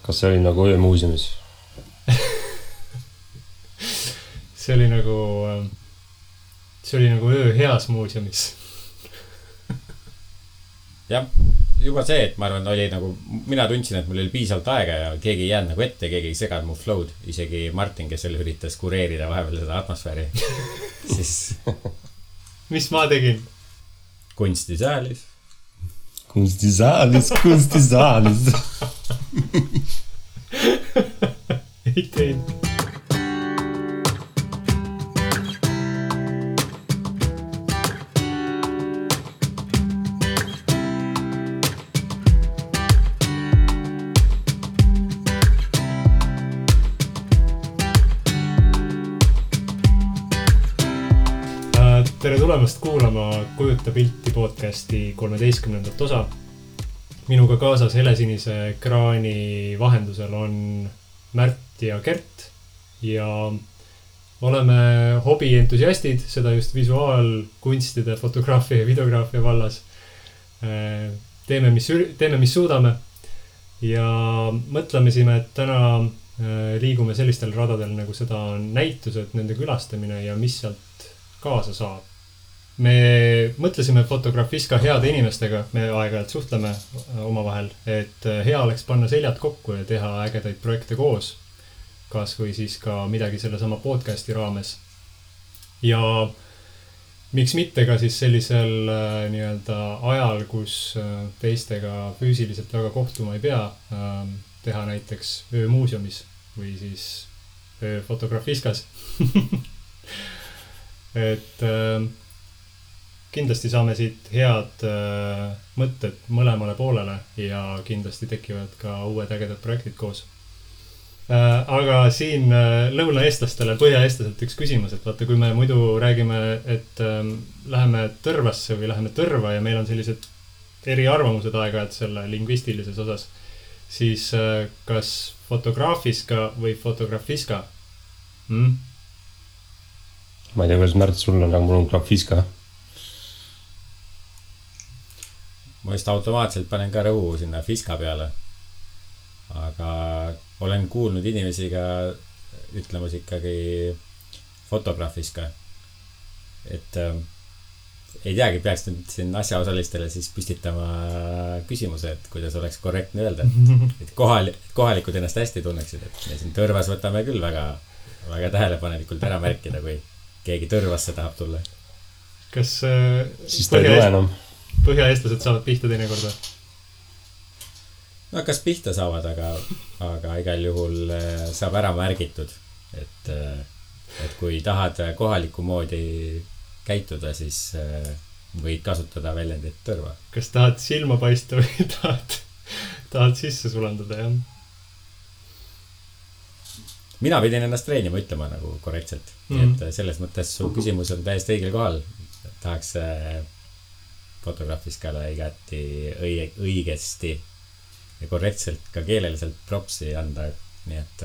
Kas see oli nagu öömuuseumis? See oli nagu öö heas muuseumis. Jah, juba see, et ma arvan, oli nagu, mina tundsin, et mul oli piisavalt aega ja keegi ei jäänud nagu ette, keegi ei seganud mu flow'd. Isegi Martin, kes oli üritas kureerida vahepeal seda atmosfääri. Siis... Mis ma tegin? Kunstisaalis. Kunstisaalis. Ei teinud. Tere tulemast kuulama Kujuta pilti podcasti 13. osa. Minuga kaasas helesinise ekraani vahendusel on Märt ja Kert ja oleme hobientusiastid, seda just visuaalkunstide, fotograafia ja videograafia vallas. Teeme, mis suudame ja mõtlemesime, et täna liigume sellistel radadel, nagu seda on näitused, nende külastamine ja mis sealt kaasa saab. Me mõtlesime Fotografiska heade inimestega, me aeg-ajalt suhtleme omavahel, et hea oleks panna seljad kokku ja teha ägedaid projekte koos. Kas või siis ka midagi selle sama podcasti raames. Ja miks mitte ka siis sellisel nii-öelda ajal, kus teistega füüsiliselt väga kohtuma ei pea, teha näiteks öömuuseumis või siis Fotografiskas. Et kindlasti saame siit head mõtted mõlemale poolele ja kindlasti tekivad ka uued ägedad projektid koos. Aga siin lõunaeestlastele, põhjaeestlaselt üks küsimus, et vaata, kui me muidu räägime, et läheme Tõrvasse või läheme Tõrva ja meil on sellised eriarvamused aeg-ajalt selle lingvistilises osas, siis kas Fotografiska või Fotografiska? Ma ei tea, kuidas Märt sul on, aga mul on Grafiska. Ma just automaatselt panen ka rõhu sinna Fiska peale. Aga olen kuulnud inimesi ka ütlemas ikkagi Fotografiska. Et ei teagi, peaks nüüd siin asjaosalistele siis püstitama küsimuse, et kuidas oleks korrektne öelda. Et kohalikud ennast hästi tunneksid. Et me siin Tõrvas võtame küll väga, väga tähelepanelikult ära märkida, kui keegi Tõrvasse tahab tulla. Kas siis ta ei tule enam. Põhjaeestlased saavad pihta teinekorda? No kas pihta saavad, aga igal juhul saab ära märgitud, et kui tahad kohaliku moodi käituda, siis võid kasutada väljendit Tõrva. Kas tahad silma paista või tahad sisse sulandada, jah? Mina pidin ennast treenima ütlema nagu korrektselt. Et selles mõttes su küsimus on täiesti õigel kohal. Tahaks Fotografiskale igati õigesti ja korrektselt ka keeleliselt propsi anda. Nii et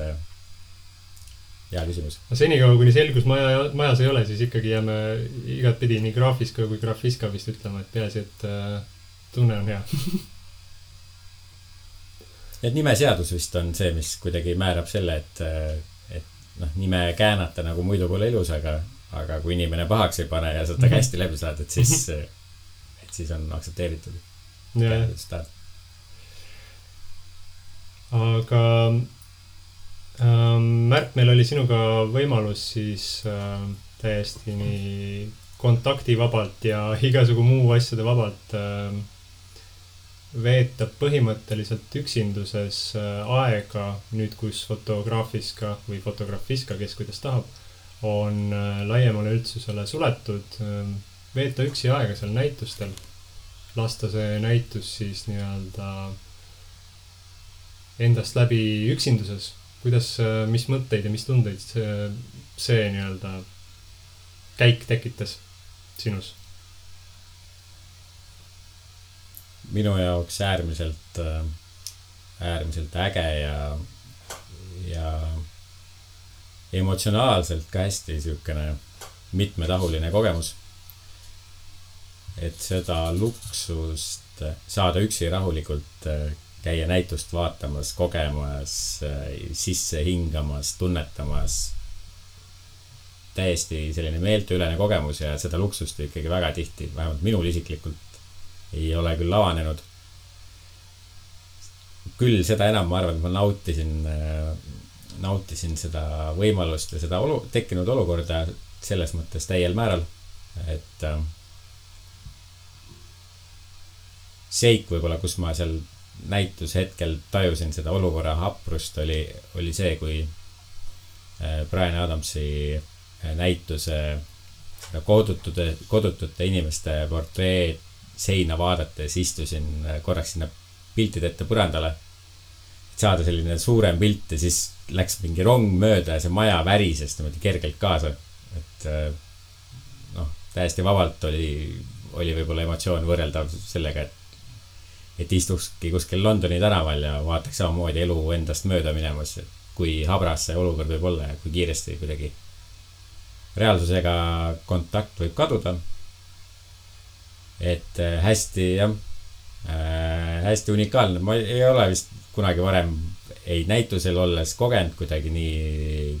hea küsimus. Senikaua, kuni selgus majas ei ole, siis ikkagi jääme igat pidi nii Grafiska kui Grafiska vist ütlema, et peaasi, et tunne on hea. Et nimeseadus vist on see, mis kuidagi määrab selle, et nime käänata nagu muidu pole ilus, aga kui inimene pahaks ei pane ja seda hästi läbi saad, et siis on aktsepteeritud. Aga Märt, meil oli sinuga võimalus siis täiesti nii kontaktivabalt ja igasugu muu asjade vabalt veeta põhimõtteliselt üksinduses aega nüüd, kus Fotografiska või Fotografiska, kes kuidas tahab, on laiemale üldsusele suletud. Veeta üksi aega seal näitustel. Lasta see näitus siis nii-öelda endast läbi üksinduses. Kuidas, mis mõtteid ja mis tundeid see nii-öelda käik tekitas sinus? Minu jaoks äärmiselt äge ja emotsionaalselt ka hästi siukene mitmetahuline kogemus. Et seda luksust saada üksi rahulikult käia näitust vaatamas, kogemas, sisse hingamas, tunnetamas. Täiesti selline meelteülene kogemus ja seda luksust ikkagi väga tihti, vähemalt minul isiklikult ei ole küll avanenud. Küll seda enam ma arvan, et ma nautisin seda võimalust ja seda tekkinud olukorda selles mõttes täiel määral, et seik võib-olla, kus ma seal näitushetkel tajusin seda olukorra haprust, oli see, kui Bryan Adamsi näituse kodutute inimeste portreed seina vaadates istusin korraks sinna piltide ette põrandale, et saada selline suurem pilt ja siis läks mingi rong mööda ja see maja värises niimoodi kergelt kaasa, et täiesti vabalt oli võib-olla emotsioon võrreldav sellega, et istukski kuskil Londoni tänaval ja vaataks samamoodi elu endast mööda minemas, kui habras see olukord võib olla ja kui kiiresti kuidagi reaalsusega kontakt võib kaduda. Et hästi unikaalne. Ma ei ole vist kunagi varem ei näitusel olles kogenud kuidagi nii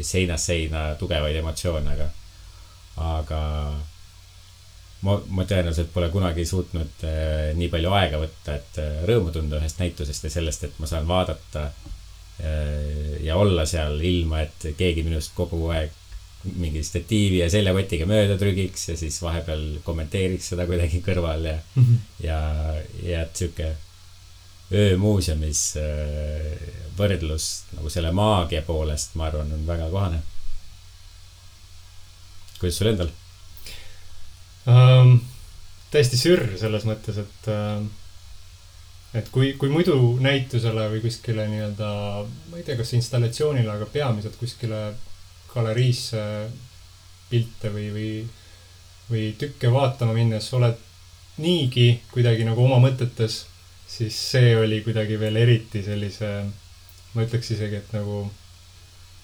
seinast seina tugevaid emotsioone, aga ma tõenäoliselt pole kunagi suutnud nii palju aega võtta, et rõõmu tunda ühest näitusest ja sellest, et ma saan vaadata ja olla seal ilma, et keegi minust kogu aeg mingi statiivi ja seljakotiga mööda trügiks ja siis vahepeal kommenteeriks seda kuidagi kõrval ja et siuke öömuuseumis võrdlus nagu selle maagia poolest, ma arvan, on väga kohane. Kuidas sul endal? Täiesti sürr selles mõttes, et kui muidu näitusele või kuskile nii-öelda, ma ei tea, kas installatsioonile, aga peamiselt kuskile galeriisse pilte või tükke vaatama minnes oled niigi kuidagi nagu oma mõtetes, siis see oli kuidagi veel eriti sellise, ma ütleks isegi, et nagu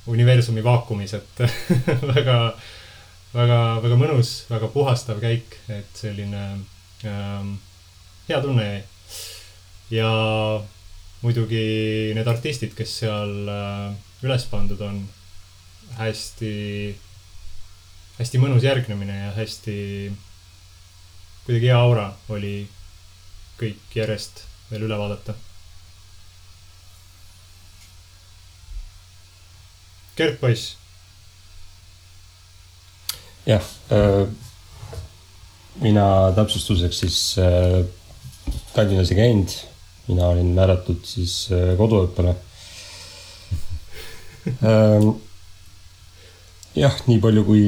universumi vaakumis, et väga, väga, väga mõnus, väga puhastav käik, et selline hea tunne jäi. Ja muidugi need artistid, kes seal üles pandud on, hästi mõnus järgnemine ja hästi kuidagi hea aura oli kõik järjest veel üle vaadata. Gert poiss. Jah, mina täpsustuseks siis Tallinnas ei käinud. Mina olin määratud siis koduõppele. Jah, nii palju kui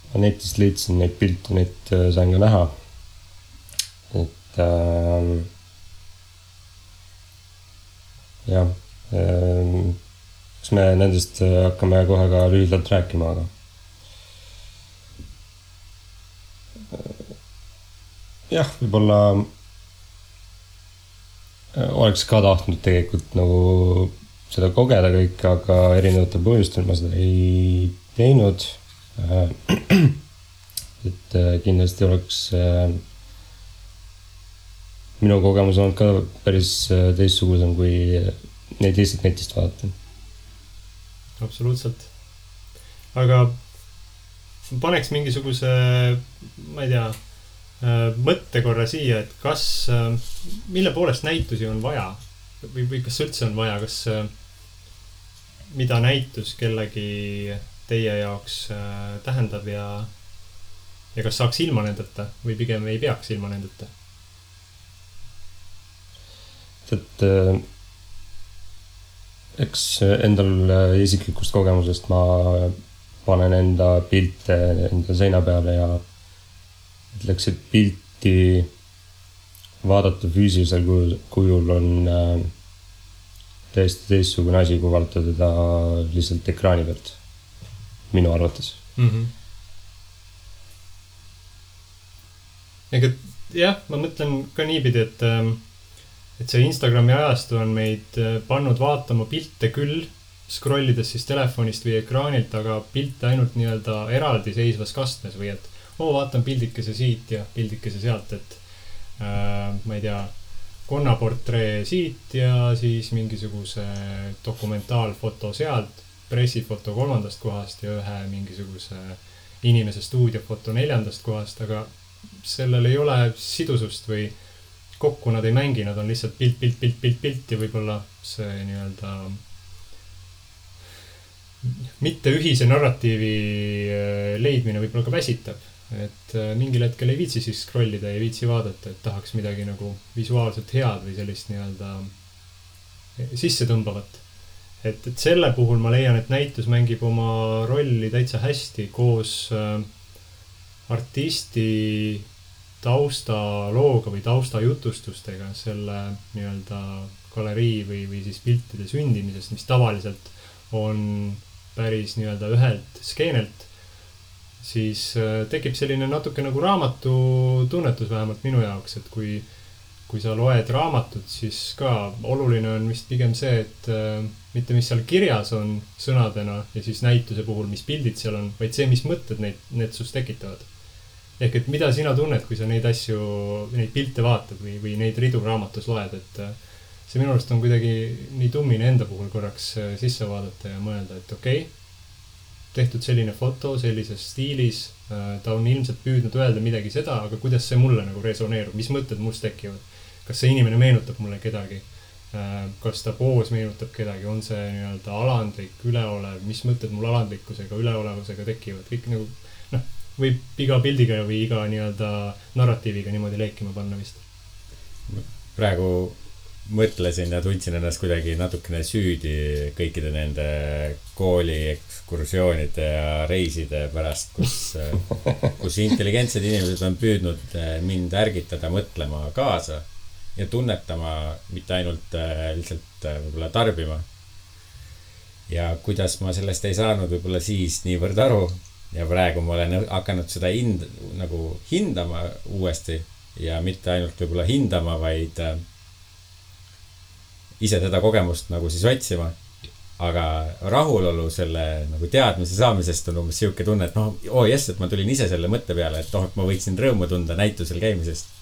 ma netist leidsin neid pilte, neid sain ka näha. Et jah, kas me nendest hakkame kohe ka lühidalt rääkima, aga jah, võib-olla oleks ka tahtnud tegelikult nagu seda kogeda kõik, aga erinevatel põhjustel ma seda ei teinud. Et kindlasti oleks minu kogemus olnud ka päris teistsugusem, kui neid lihtsalt netist vaadata. Absoluutselt. Aga paneks mingisuguse, ma ei tea, mõtte korra siia, et kas, mille poolest näitusi on vaja või kas üldse on vaja, kas mida näitus kellegi teie jaoks tähendab ja kas saaks ilma nendeta või pigem ei peaks ilma nendeta? Et eks endal isiklikust kogemusest ma panen enda pilte enda seina peale ja ütleks, et pilti vaadata füüsilisel kujul on täiesti teistsugune asi, kui vaadata teda lihtsalt ekraani pealt, minu arvates. Ega jah, ma mõtlen ka niipidi, et see Instagrami ajastu on meid pannud vaatama pilte küll, scrollides siis telefonist või ekraanilt, aga pilte ainult nii-öelda eraldi seisvas kastmes või et vaatan pildikese siit ja pildikese sealt, et ma ei tea, konnaportree siit ja siis mingisuguse dokumentaalfoto sealt, pressifoto 3. kohast ja ühe mingisuguse inimese stuudiofoto 4. kohast, aga sellel ei ole sidusust või kokku nad ei mängi, nad on lihtsalt pilt ja võib-olla see nii-öelda mitte ühise narratiivi leidmine võib-olla ka väsitab. Et mingil hetkel ei viitsi siis scrollida, ei viitsi vaadata, et tahaks midagi nagu visuaalselt head või sellist nii-öelda sisse tõmbavat. Et selle puhul ma leian, et näitus mängib oma rolli täitsa hästi koos artisti taustalooga või taustajutustustega selle nii-öelda galerii või siis piltide sündimisest, mis tavaliselt on päris nii-öelda ühelt skeenelt, siis tekib selline natuke nagu raamatu tunnetus vähemalt minu jaoks, et kui sa loed raamatut, siis ka oluline on vist pigem see, et mitte mis seal kirjas on sõnadena ja siis näituse puhul, mis pildid seal on, vaid see, mis mõtted need sust tekitavad. Ehk et mida sina tunned, kui sa neid asju, neid pilte vaatad või neid ridu raamatus loed, et see minu arust on kuidagi nii tummine enda puhul korraks sisse vaadata ja mõelda, et okei, tehtud selline foto sellises stiilis, ta on ilmselt püüdnud öelda midagi seda, aga kuidas see mulle nagu resoneerub, mis mõtted must tekivad? Kas see inimene meenutab mulle kedagi? Kas ta poos meenutab kedagi? On see nii-öelda alandlik, üleolev? Mis mõtted mul alandlikkusega, üleolevusega tekivad? Kõik nagu, võib iga pildiga või iga nii-öelda narratiiviga niimoodi leekima panna vist. Praegu mõtlesin ja tundsin ennast kuidagi natukene süüdi kõikide nende kooli ekskursioonide ja reiside pärast, kus intelligentsed inimesed on püüdnud mind ärgitada mõtlema kaasa ja tunnetama, mitte ainult lihtsalt võib-olla tarbima. Ja kuidas ma sellest ei saanud võib-olla siis niivõrd aru ja praegu ma olen hakanud seda nagu hindama uuesti ja mitte ainult võib-olla hindama, vaid ise seda kogemust nagu siis otsima, aga rahulolu selle nagu teadmise saamisest on umbes siuke tunne, et et ma tulin ise selle mõtte peale, et et ma võiksin rõõmu tunda näitusel käimisest.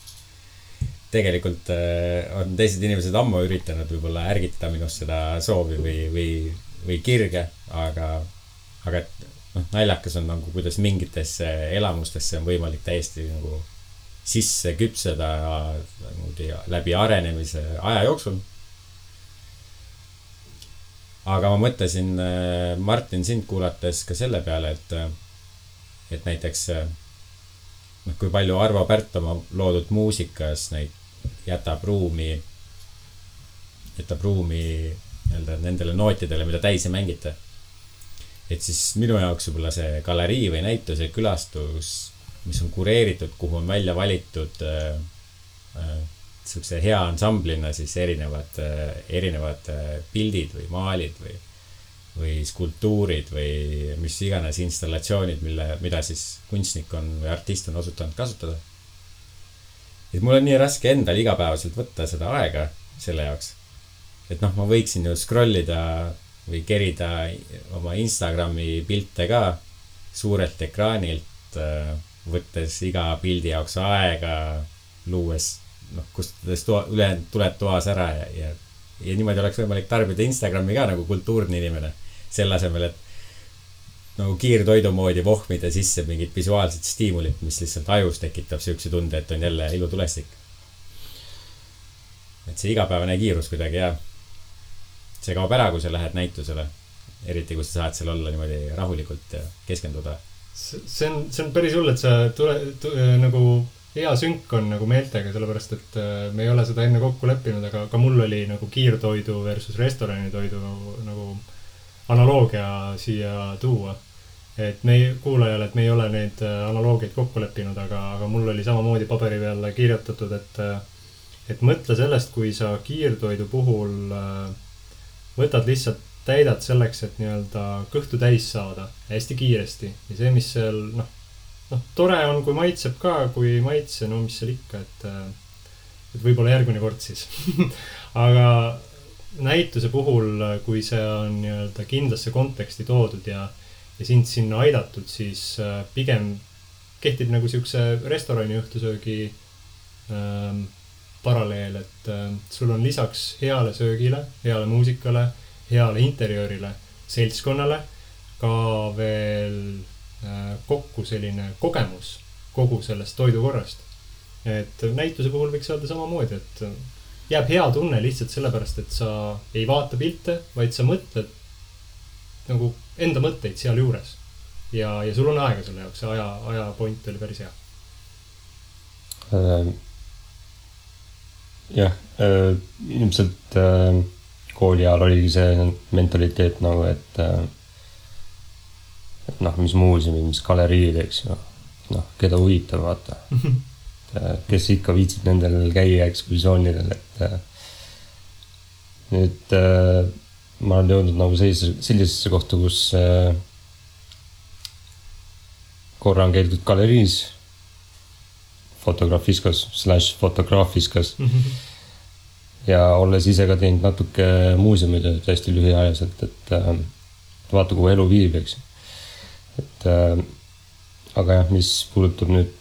Tegelikult on teised inimesed ammu üritanud võib-olla ärgitada minust seda soovi või kirge, aga naljakas on nagu, kuidas mingitesse elamustesse on võimalik täiesti nagu sisse küpseda läbi arenemise aja jooksul. Aga ma mõtlesin, Martin, sind kuulates ka selle peale, et näiteks kui palju Arvo Pärt oma loodud muusikas jätab ruumi nendele nootidele, mida täis ei mängita. Et siis minu jaoks võib-olla see galerii või näituse külastus, mis on kureeritud, kuhu on välja valitud sellise hea ansamblina siis erinevad pildid või maalid või skulptuurid või mis iganes installatsioonid, mida siis kunstnik või artist on osutanud kasutada. Et mul on nii raske endal igapäevaselt võtta seda aega selle jaoks. Et ma võiksin ju scrollida või kerida oma Instagrami pilte ka suurelt ekraanilt, võttes iga pildi jaoks aega, luues kustades tuled toas ära ja niimoodi oleks võimalik tarbida Instagrami ka nagu kultuurne inimene. Selle asemel, et nagu kiirtoidu moodi vohmida sisse mingid visuaalsed stiimulit, mis lihtsalt ajus tekitab siukse tunde, et on jälle ilutulestik. Et see igapäevane kiirus kuidagi see kaob ära, kui sa lähed näitusele. Eriti, kui sa saad seal olla niimoodi rahulikult ja keskenduda. See on päris hull, et sa nagu hea sünk on nagu meeltega, sellepärast, et me ei ole seda enne kokku leppinud, aga ka mul oli nagu kiirtoidu versus restoranitoidu nagu analoogia siia tuua. Et kuulajale, et me ei ole neid analoogiaid kokku leppinud, aga mul oli samamoodi paberi peale kirjutatud, et mõtle sellest, kui sa kiirtoidu puhul võtad lihtsalt täidad selleks, et nii-öelda kõhtu täis saada hästi kiiresti. Ja see, mis seal, tore on, kui maitseb ka, kui maitse, mis seal ikka, et võib-olla järgmine kord siis. Aga näituse puhul, kui see on nii-öelda kindlasse konteksti toodud ja sind sinna aidatud, siis pigem kehtib nagu siukse restorani õhtusöögi paralleel, et sul on lisaks heale söögile, heale muusikale, heale interjöörile, seltskonnale ka veel kokku selline kogemus kogu sellest toidukorrast. Et näituse puhul võiks öelda samamoodi, et jääb hea tunne lihtsalt sellepärast, et sa ei vaata pilte, vaid sa mõtled nagu enda mõtteid seal juures. Ja sul on aega selle jaoks, see aja point oli päris hea. Jah, ilmselt kooli ajal oligi see mentaliteet nagu, et mis muuseumi, mis galeriid, eks ju. Keda huvitab, vaata. Kes ikka viitsid nendel käia ekskursioonidel, et nüüd ma olen jõudnud nagu sellisesse kohta, kus korra on käidud galeriis, fotograafiskas ja olles ise ka teinud natuke muuseumitööd hästi lühiajaliselt, et vaata, kuhu elu viib, eks. Et aga jah, mis puudutab nüüd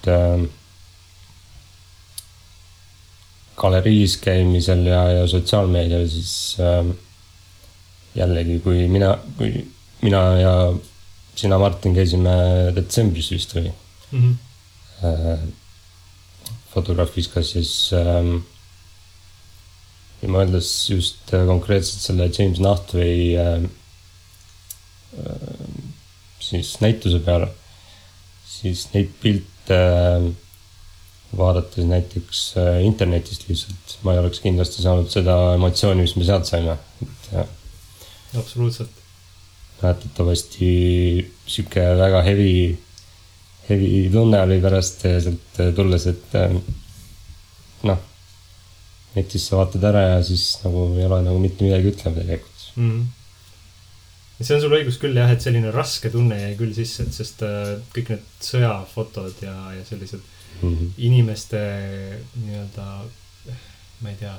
galeriis käimisel ja sotsiaalmeedial, siis jällegi, kui mina ja sina, Martin, käisime detsembris vist või fotograafiskas, siis ja mõeldes just konkreetselt selle James Nachtwey siis näituse peale, siis neid pilte vaadates näiteks internetist lihtsalt, ma ei oleks kindlasti saanud seda emotsiooni, mis me sealt saime. Absoluutselt. Mäletatavasti siuke väga heavy tunne oli pärast sealt tulles, et netis sa vaatad ära ja siis nagu ei ole nagu mitte midagi ütlema tegelikult. See on sul õigus küll jah, et selline raske tunne jäi küll sisse, et sest kõik need sõjafotod ja sellised inimeste nii-öelda, ma ei tea,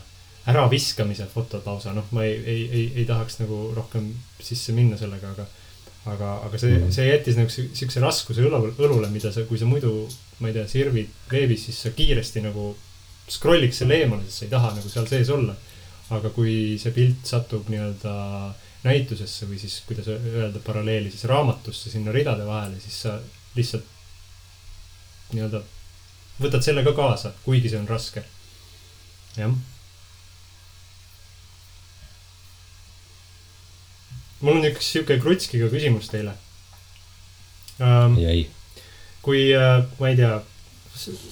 äraviskamise fotod lausa, ma ei tahaks nagu rohkem sisse minna sellega, aga see jättis nagu siukse raskuse õlule, mida sa, kui sa muidu, ma ei tea, sirvid veebis, siis sa kiiresti nagu scrolliks selle eemale, sest sa ei taha nagu seal sees olla. Aga kui see pilt satub nii-öelda näitusesse või siis, kuidas öelda paralleeli, siis raamatusse sinna ridade vahele, siis sa lihtsalt nii-öelda võtad selle ka kaasa, kuigi see on raske. Jah. Mul on üks siuke krutskiga küsimus teile. Jäi. Kui, ma ei tea,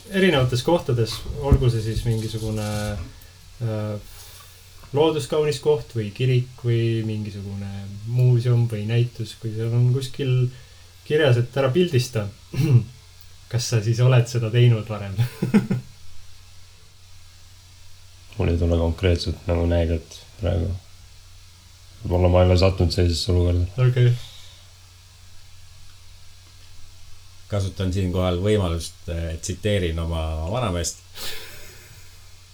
erinevates kohtades, olgu see siis mingisugune looduskaunis koht või kirik või mingisugune muuseum või näitus, kui seal on kuskil kirjas, et ära pildista. Kas sa siis oled seda teinud varem? Mul ei tule konkreetselt nagu näidet praegu. Võib-olla ma ei ole sattunud sellisesse olukorda. Okay. Kasutan siinkohal võimalust, tsiteerin oma vanameest.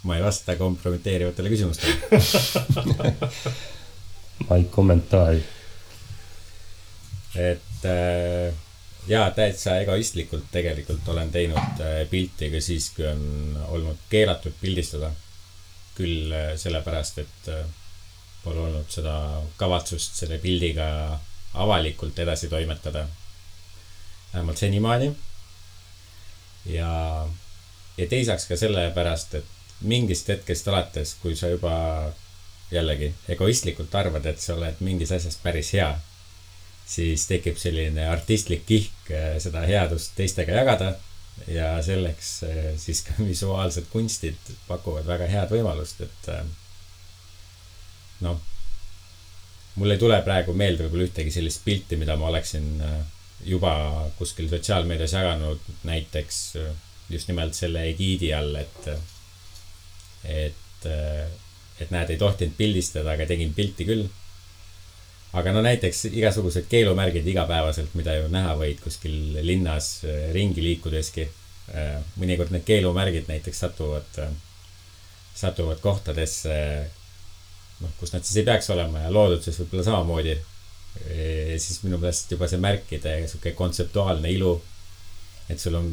Ma ei vasta kompromiteerivatele küsimustele. Ma ei kommentaari. Et jaa, täitsa egoistlikult tegelikult olen teinud pilti ka siis, kui on olnud keelatud pildistada. Küll sellepärast, et pole olnud seda kavatsust selle pildiga avalikult edasi toimetada. Vähemalt senimaani. Ja teisaks ka sellepärast, et mingist hetkest alates, kui sa juba jällegi egoistlikult arvad, et sa oled mingis asjast päris hea, siis tekib selline artistlik kihk seda headust teistega jagada ja selleks siis ka visuaalsed kunstid pakuvad väga head võimalust, et mul ei tule praegu meelde võib-olla ühtegi sellist pilti, mida ma oleksin juba kuskil sotsiaalmeedias jaganud, näiteks just nimelt selle egiidi all, et näed, ei tohtinud pildistada, aga tegin pilti küll. Aga näiteks igasugused keelumärgid igapäevaselt, mida ju näha võid kuskil linnas ringi liikudeski. Mõnikord need keelumärgid näiteks satuvad kohtadesse, kus nad siis ei peaks olema ja looduses võib-olla samamoodi. Siis minu meelest juba see märkide kontseptuaalne ilu, et sul on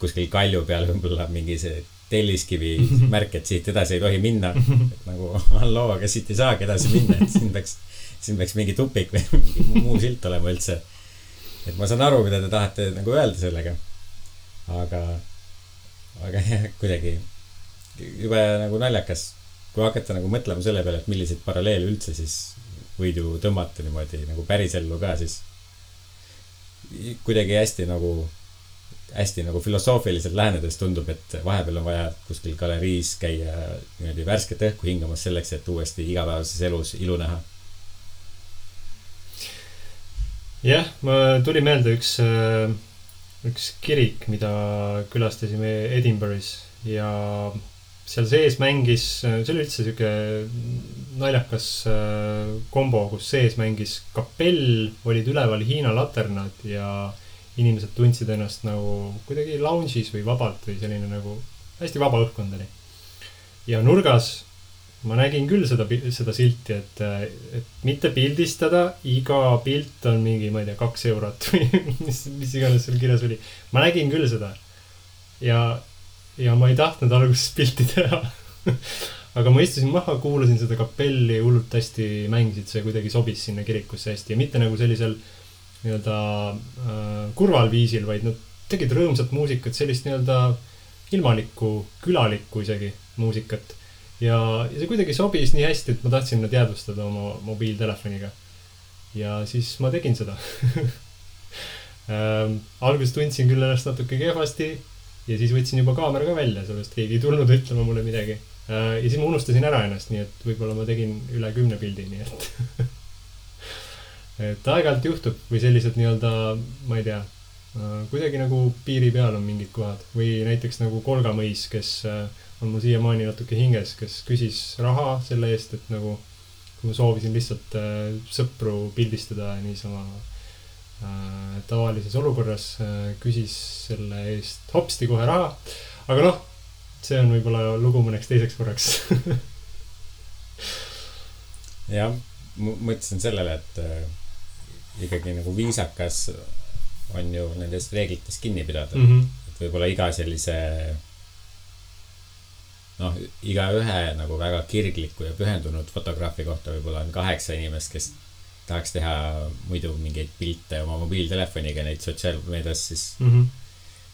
kuskil kalju peal võib-olla mingi see telliskivi märk, et siit edasi ei tohi minna. Et nagu halloo, aga siit ei saagi edasi minna, et siin peaks mingi tupik või mingi muu silt olema üldse. Et ma saan aru, mida te tahate nagu öelda sellega. Aga jah, kuidagi juba nagu naljakas, kui hakata nagu mõtlema selle peale, et milliseid paralleele üldse siis võid ju tõmmata niimoodi nagu pärisellu ka, siis kuidagi hästi nagu filosoofiliselt lähenedes tundub, et vahepeal on vaja kuskil galeriis käia niimoodi värsket õhku hingamas selleks, et uuesti igapäevases elus ilu näha. Jah, ma tuli meelde üks kirik, mida külastasime Edinburgh'is ja seal sees mängis, see oli üldse siuke naljakas kombo, kus sees mängis kapell, olid üleval Hiina laternad ja inimesed tundsid ennast nagu kuidagi lounge'is või vabalt või selline nagu hästi vaba õhkkond oli. Ja nurgas ma nägin küll seda silti, et mitte pildistada, iga pilt on mingi, ma ei tea, 2 eurot või mis iganes seal kirjas oli. Ma nägin küll seda ja ma ei tahtnud alguses pilti teha. Aga ma istusin maha, kuulasin seda kapelli, hullult hästi mängisid, see kuidagi sobis sinna kirikusse hästi ja mitte nagu sellisel nii-öelda kurval viisil, vaid nad tegid rõõmsat muusikat, sellist nii-öelda ilmalikku, külalikku isegi muusikat. Ja see kuidagi sobis nii hästi, et ma tahtsin nad jäädvustada oma mobiiltelefoniga. Ja siis ma tegin seda. Alguses tundsin küll ennast natuke kehvasti ja siis võtsin juba kaamera ka välja, sellest keegi ei tulnud ütlema mulle midagi. Ja siis ma unustasin ära ennast, nii et võib-olla ma tegin üle 10 pildi, nii et aeg-ajalt juhtub või sellised nii-öelda, ma ei tea, kuidagi nagu piiri peal on mingid kohad või näiteks nagu Kolga mõis, kes on mul siiamaani natuke hinges, kes küsis raha selle eest, et nagu kui ma soovisin lihtsalt sõpru pildistada niisama tavalises olukorras, küsis selle eest hopsti kohe raha. Aga noh, see on võib-olla lugu mõneks teiseks korraks. Ja, mõtlesin sellele, et ikkagi nagu viisakas on ju nendest reeglitest kinni pidada. Et võib-olla iga sellise iga ühe nagu väga kirgliku ja pühendunud fotograafi kohta võib-olla on 8 inimest, kes tahaks teha muidu mingeid pilte oma mobiiltelefoniga, neid sotsiaalmeedias siis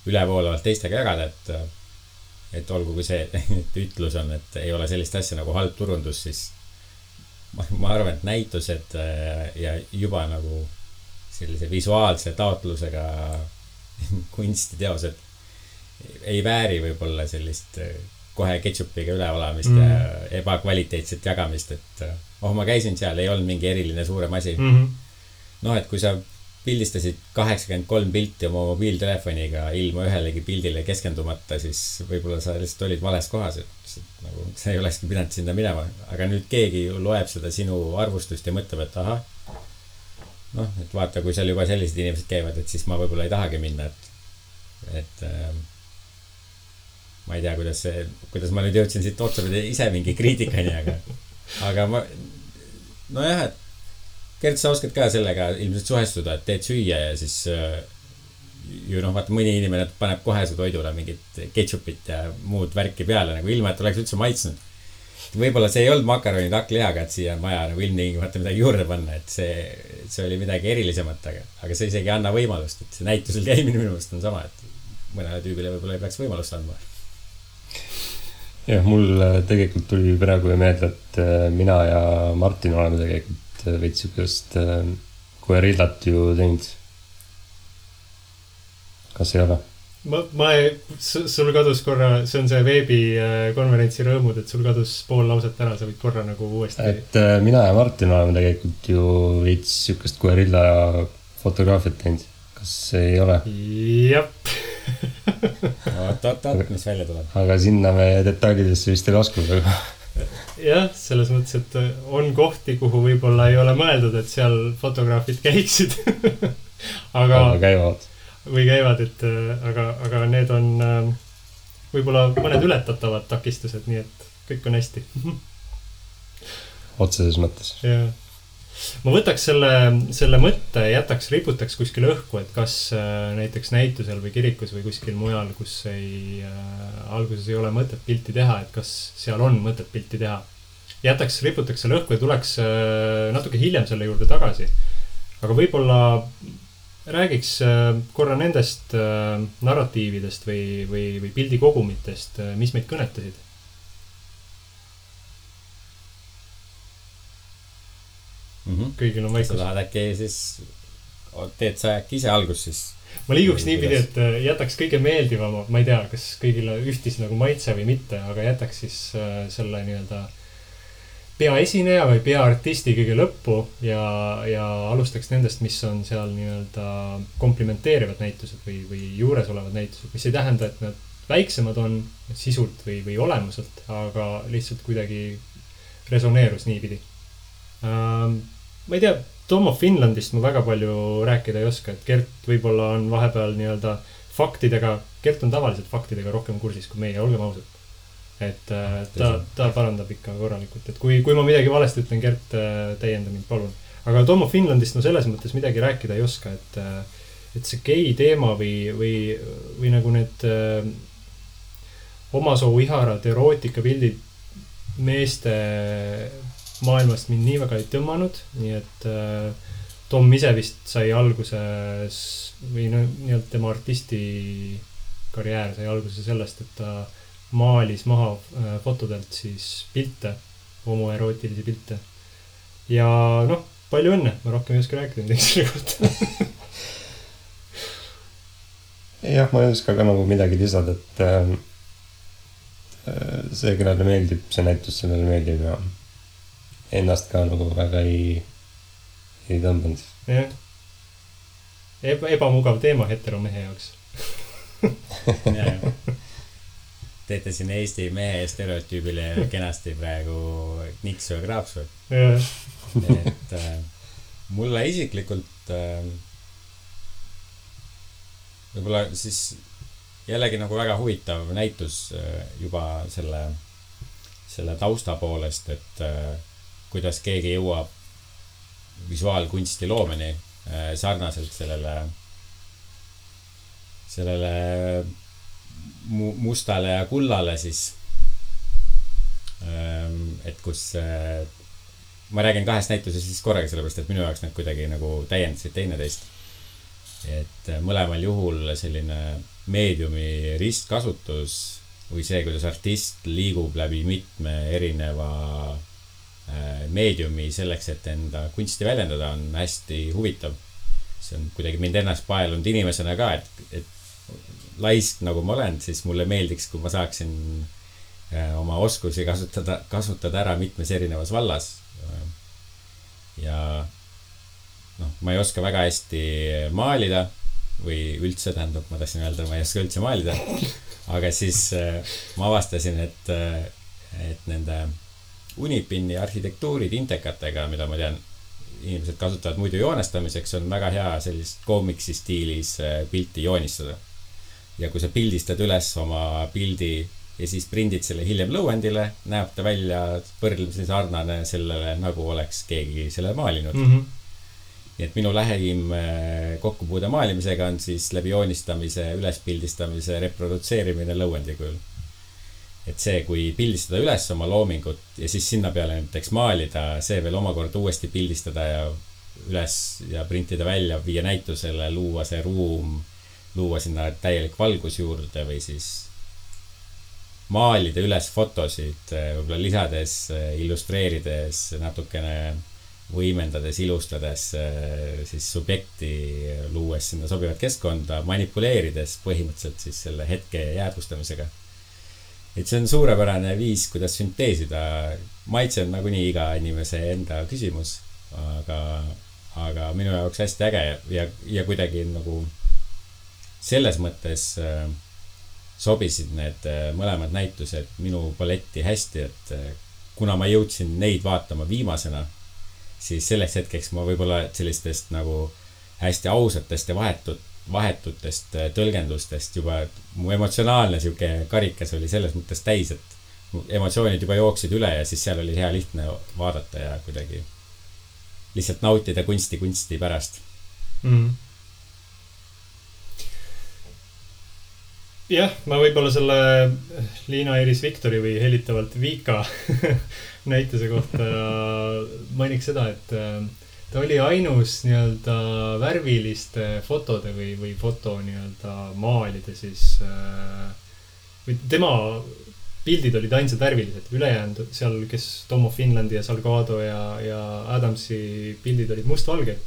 ülevoolavalt teistega jagada, et olgu kui see ütlus on, et ei ole sellist asja nagu halb turundus, siis ma arvan, et näitused ja juba nagu sellise visuaalse taotlusega kunstiteosed ei vääri võib-olla sellist kohe ketšupiga üleolamist ja ebakvaliteetset jagamist, et ma käisin seal, ei olnud mingi eriline suurem asi. Et kui sa pildistasid 83 pilti oma mobiiltelefoniga ilma ühelegi pildile keskendumata, siis võib-olla sa lihtsalt olid vales kohas, et nagu, sa ei olekski pidanud sinna minema. Aga nüüd keegi loeb seda sinu arvustust ja mõtleb, et aha, et vaata, kui seal juba sellised inimesed käivad, et siis ma võib-olla ei tahagi minna, et ma ei tea, kuidas ma nüüd jõudsin siit otsapidi ise mingi kriitikani, aga ma, et Gert, sa oskad ka sellega ilmselt suhestuda, et teed süüa ja siis ju vaata, mõni inimene paneb kohe su toidule mingit ketšupit ja muud värki peale, nagu ilma, et oleks üldse maitsnud. Võib-olla see ei olnud makaronid hakklihaga, et siia on vaja nagu ilmtingimata midagi juurde panna, et see oli midagi erilisemat, aga see isegi anna võimalust, et see näitusel käimine minu meelest on sama, et mõnele tüübile võib-olla ei peaks võimalust andma. Jah, mul tegelikult tuli praegu meelde, et mina ja Martin oleme tegelikult veits sükest guerillat ju teinud. Kas ei ole? Sul kadus korra, see on see veebikonverentsi rõõmud, et sul kadus pool lauset ära, sa võid korra nagu uuesti. Et mina ja Martin oleme tegelikult ju veits sükest guerilla fotograafiat teinud. Kas ei ole? Jep. Mis välja tuleb? Aga sinna me detailidesse vist ei laskunud. Jah, selles mõttes, et on kohti, kuhu võib-olla ei ole mõeldud, et seal fotograafid käiksid. Aga käivad. Või käivad, et aga need on võib-olla mõned ületatavad takistused, nii et kõik on hästi. Otseses mõttes. Jah. ma võtaks selle mõtte, riputaks kuskil õhku, et kas näiteks näitusel või kirikus või kuskil mujal, kus alguses ei ole mõtet pilti teha, et kas seal on mõtet pilti teha. Riputaks selle õhku ja tuleks natuke hiljem selle juurde tagasi. Aga võib-olla räägiks korra nendest narratiividest või pildikogumitest, mis meid kõnetasid. Kõigil on vaikus. Sa tahad äkki siis, teed sa äkki ise algus siis? Ma liiguks niipidi, et jätaks kõige meeldivama, ma ei tea, kas kõigile ühtis nagu maitse või mitte, aga jätaks siis selle nii-öelda peaesineja või peaartisti kõige lõppu ja alustaks nendest, mis on seal nii-öelda komplimenteerivad näitused või juures olevad näitused, mis ei tähenda, et nad väiksemad on sisult või olemuselt, aga lihtsalt kuidagi resoneerus niipidi. Ma ei tea, Tom of Finlandist ma väga palju rääkida ei oska, et Gert võib-olla on vahepeal nii-öelda faktidega, Gert on tavaliselt faktidega rohkem kursis kui meie, olgem ausad. Et ta parandab ikka korralikult, et kui ma midagi valesti ütlen, Gert täienda mind, palun. Aga Tom of Finlandist no selles mõttes midagi rääkida ei oska, et see gei teema või nagu need omasoo iharad erootikaPildid meeste maailmast mind nii väga ei tõmmanud, nii et Tom ise vist sai alguses või nii-öelda tema artisti karjäär sai alguse sellest, et ta maalis maha fotodelt siis pilte, homoerootilisi pilte. Ja noh, palju õnne, ma rohkem ei oska rääkida midagi selle kohta. Jah, ma ei oska ka nagu midagi lisada, et see, kellele meeldib, see näitus sellele meeldib ja ennast ka nagu väga ei tõmbanud. Jah. Ebamugav teema heteromehe jaoks. Teete siin Eesti mehe stereotüübile kenasti praegu niksu ja kraapsu. Et mulle isiklikult võib-olla siis jällegi nagu väga huvitav näitus juba selle tausta poolest, et kuidas keegi jõuab visuaalkunsti loomeni sarnaselt sellele mustale ja kullale siis. Et kus ma räägin kahest näitusest siis korraga, sellepärast et minu jaoks need kuidagi nagu täiendasid teineteist. Et mõlemal juhul selline meediumi ristkasutus või see, kuidas artist liigub läbi mitme erineva meediumi selleks, et enda kunsti väljendada, on hästi huvitav. See on kuidagi mind ennast paelunud inimesena ka, et laisk nagu ma olen, siis mulle meeldiks, kui ma saaksin oma oskusi kasutada ära mitmes erinevas vallas. Ja ma ei oska väga hästi maalida või üldse, tähendab, ma tahtsin öelda, ma ei oska üldse maalida. Aga siis ma avastasin, et nende Unipini arhitektuurid intekatega, mida ma tean, inimesed kasutavad muidu joonestamiseks, on väga hea sellist koomiksi stiilis pilti joonistada. Ja kui sa pildistad üles oma pildi ja siis prindid selle hiljem lõuendile, näeb ta välja võrdlemisi sarnane sellele, nagu oleks keegi selle maalinud. Nii et minu lähim kokkupuude maalimisega on siis läbi joonistamise, ülespildistamise, reprodutseerimine lõuendi kujul. Et see, kui pildistada üles oma loomingut ja siis sinna peale näiteks maalida, see veel omakorda uuesti pildistada ja üles ja printida välja, viia näitusele, luua see ruum, luua sinna täielik valgus juurde või siis maalida üles fotosid, võib-olla lisades, illustreerides, natukene võimendades, ilustades siis subjekti, luues sinna sobivat keskkonda, manipuleerides põhimõtteliselt siis selle hetke jäädvustamisega. Et see on suurepärane viis, kuidas sünteesida. Maitse on nagunii iga inimese enda küsimus, aga minu jaoks hästi äge ja kuidagi nagu selles mõttes sobisid need mõlemad näitused minu paletti hästi, et kuna ma jõudsin neid vaatama viimasena, siis selleks hetkeks ma võib-olla sellistest nagu hästi ausatest ja vahetutest tõlgendustest juba mu emotsionaalne siuke karikas oli selles mõttes täis, et emotsioonid juba jooksid üle ja siis seal oli hea lihtne vaadata ja kuidagi lihtsalt nautida kunsti pärast. Jah, ma võib-olla selle Liina Iris Viktori või helitavalt Vika näituse kohta mainiks seda, et ta oli ainus nii-öelda värviliste fotode või foto nii-öelda maalide siis või tema pildid olid ainsad värvilised, ülejäänud seal, kes Tom of Finlandi ja Salgado ja Adamsi pildid olid mustvalged.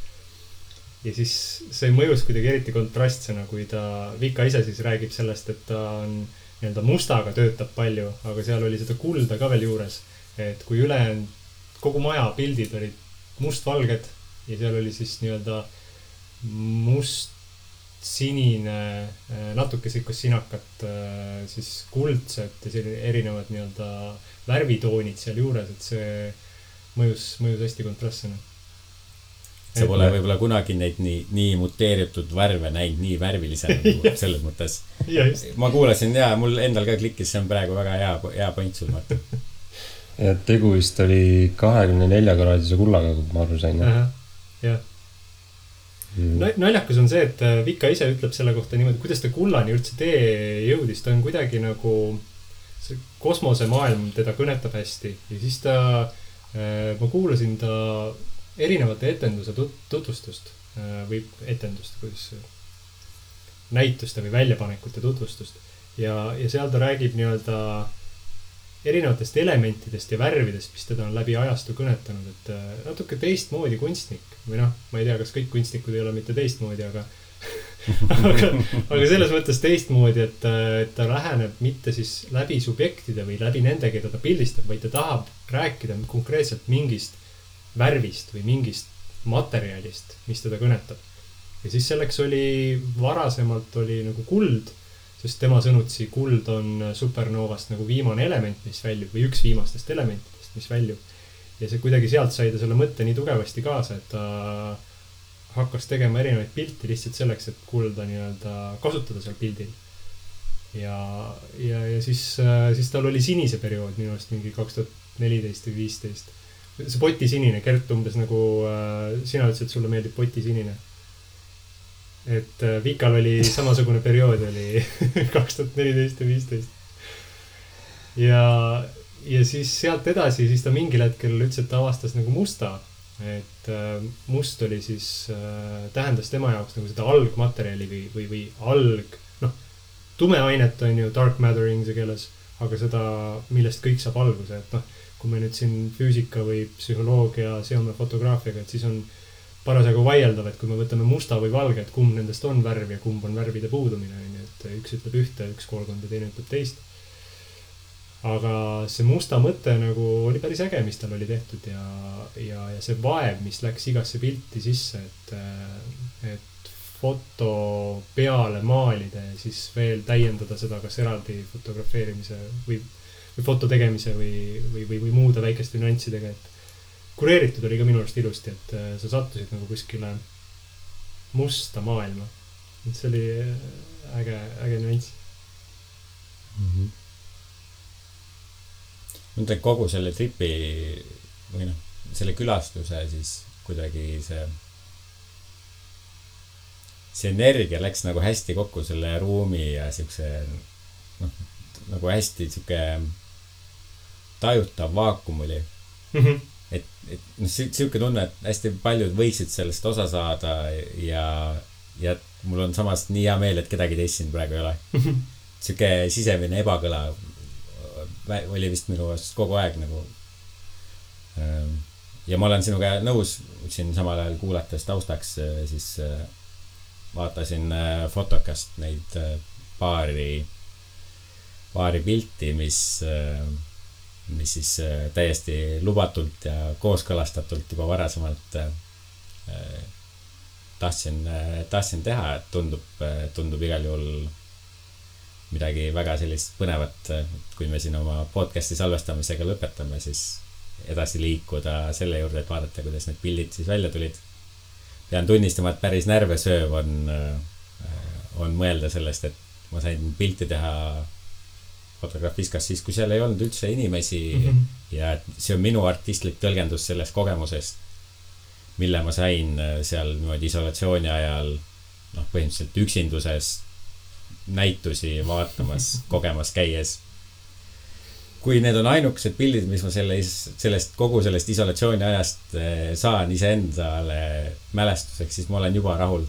Ja siis see mõjus kuidagi eriti kontrastsena, kui ta Vika ise siis räägib sellest, et ta on nii-öelda mustaga töötab palju, aga seal oli seda kulda ka veel juures, et kui ülejäänud kogu maja pildid olid mustvalged ja seal oli siis nii-öelda must-sinine, natuke sikkus sinakat, siis kuldsed ja selline erinevad nii-öelda värvitoonid seal juures, et see mõjus hästi kontrastsena. See pole võib-olla kunagi neid nii muteeritud värve näinud nii värvilisena selles mõttes. Ma kuulasin ja mul endal ka klikkis, see on praegu väga hea point sul, Martin. Ja tegu vist oli 24-kraadise kullaga, kui ma aru sain. Jah. Naljakas on see, et Vika ise ütleb selle kohta niimoodi, kuidas ta kullani üldse tee jõudis. Ta on kuidagi nagu see kosmosemaailm teda kõnetab hästi ja siis ma kuulasin ta erinevate etenduse tutvustust või etendust, kuidas näituste või väljapanekute tutvustust ja seal ta räägib nii-öelda erinevatest elementidest ja värvidest, mis teda on läbi ajastu kõnetanud, et natuke teistmoodi kunstnik või noh, ma ei tea, kas kõik kunstnikud ei ole mitte teistmoodi, aga selles mõttes teistmoodi, et ta läheneb mitte siis läbi subjektide või läbi nende, keda ta pildistab, vaid ta tahab rääkida konkreetselt mingist värvist või mingist materjalist, mis teda kõnetab. Ja siis selleks varasemalt oli nagu kuld, sest tema sõnutsi kuld on supernovast nagu viimane element, mis väljub või üks viimastest elementidest, mis väljub. Ja see kuidagi sealt sai ta selle mõtte nii tugevasti kaasa, et ta hakkas tegema erinevaid pilti lihtsalt selleks, et kulda nii-öelda kasutada seal pildil. Ja siis tal oli sinise periood minu arust mingi 2014 või 2015. See potisinine, Gert, umbes nagu sina ütlesid, et sulle meeldib potisinine. Et Vikal oli samasugune periood oli 2014 ja 2015. Ja siis sealt edasi, siis ta mingil hetkel ütles, et ta avastas nagu musta. Et must oli siis, tähendas tema jaoks nagu seda algmaterjali või tume ainet on ju dark matter inglise keeles, aga seda, millest kõik saab alguse, et kui me nüüd siin füüsika või psühholoogia seome fotograafiaga, et siis on parasjagu vaieldav, et kui me võtame musta või valge, et kumb nendest on värv ja kumb on värvide puudumine, et üks ütleb ühte, üks koolkond ja teine ütleb teist. Aga see musta mõte nagu oli päris äge, mis tal oli tehtud ja see vaev, mis läks igasse pilti sisse, et foto peale maalida ja siis veel täiendada seda kas eraldi fotografeerimise või foto tegemise või muude väikeste nüanssidega, et kureeritud oli ka minu arust ilusti, et sa sattusid nagu kuskile musta maailma. Et see oli äge nüanss. Mõtlen kogu selle tripi või selle külastuse siis kuidagi see energia läks nagu hästi kokku selle ruumi ja siukse nagu hästi siuke tajutav vaakum oli. Et siuke tunne, et hästi paljud võiksid sellest osa saada ja mul on samas nii hea meel, et kedagi teist siin praegu ei ole. Siuke sisemine ebakõla oli vist minu kogu aeg nagu. Ja ma olen sinuga nõus siin samal ajal kuulates taustaks, siis vaatasin Fotokast neid paari pilti, mis siis täiesti lubatult ja kooskõlastatult juba varasemalt tahtsin teha, et tundub igal juhul midagi väga sellist põnevat, kui me siin oma podcasti salvestamisega lõpetame, siis edasi liikuda selle juurde, et vaadata, kuidas need pildid siis välja tulid. Pean tunnistama, et päris närvesööv on mõelda sellest, et ma sain pilti teha Fotografiskas siis, kui seal ei olnud üldse inimesi ja see on minu artistlik tõlgendus sellest kogemusest, mille ma sain seal niimoodi isolatsiooni ajal põhimõtteliselt üksinduses näitusi vaatamas, kogemas käies. Kui need on ainukesed pildid, mis ma kogu sellest isolatsiooni ajast saan iseendale mälestuseks, siis ma olen juba rahul.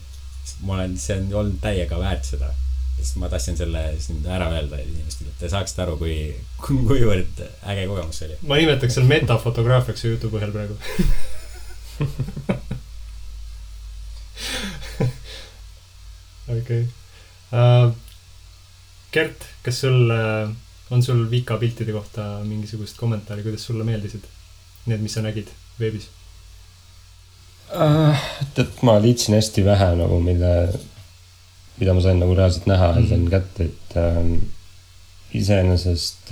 See on olnud täiega väärt seda. Sest ma tahtsin selle ära öelda inimestele, et te saaksite aru, kuivõrd äge kogemus see oli. Ma nimetaks seal metafotograafiaks jutu põhjal praegu. Okei. Gert, kas on sul Vika piltide kohta mingisugust kommentaari, kuidas sulle meeldisid need, mis sa nägid veebis? Et ma liitsin hästi vähe nagu, mida ma sain nagu reaalselt näha ja sain kätte, et iseenesest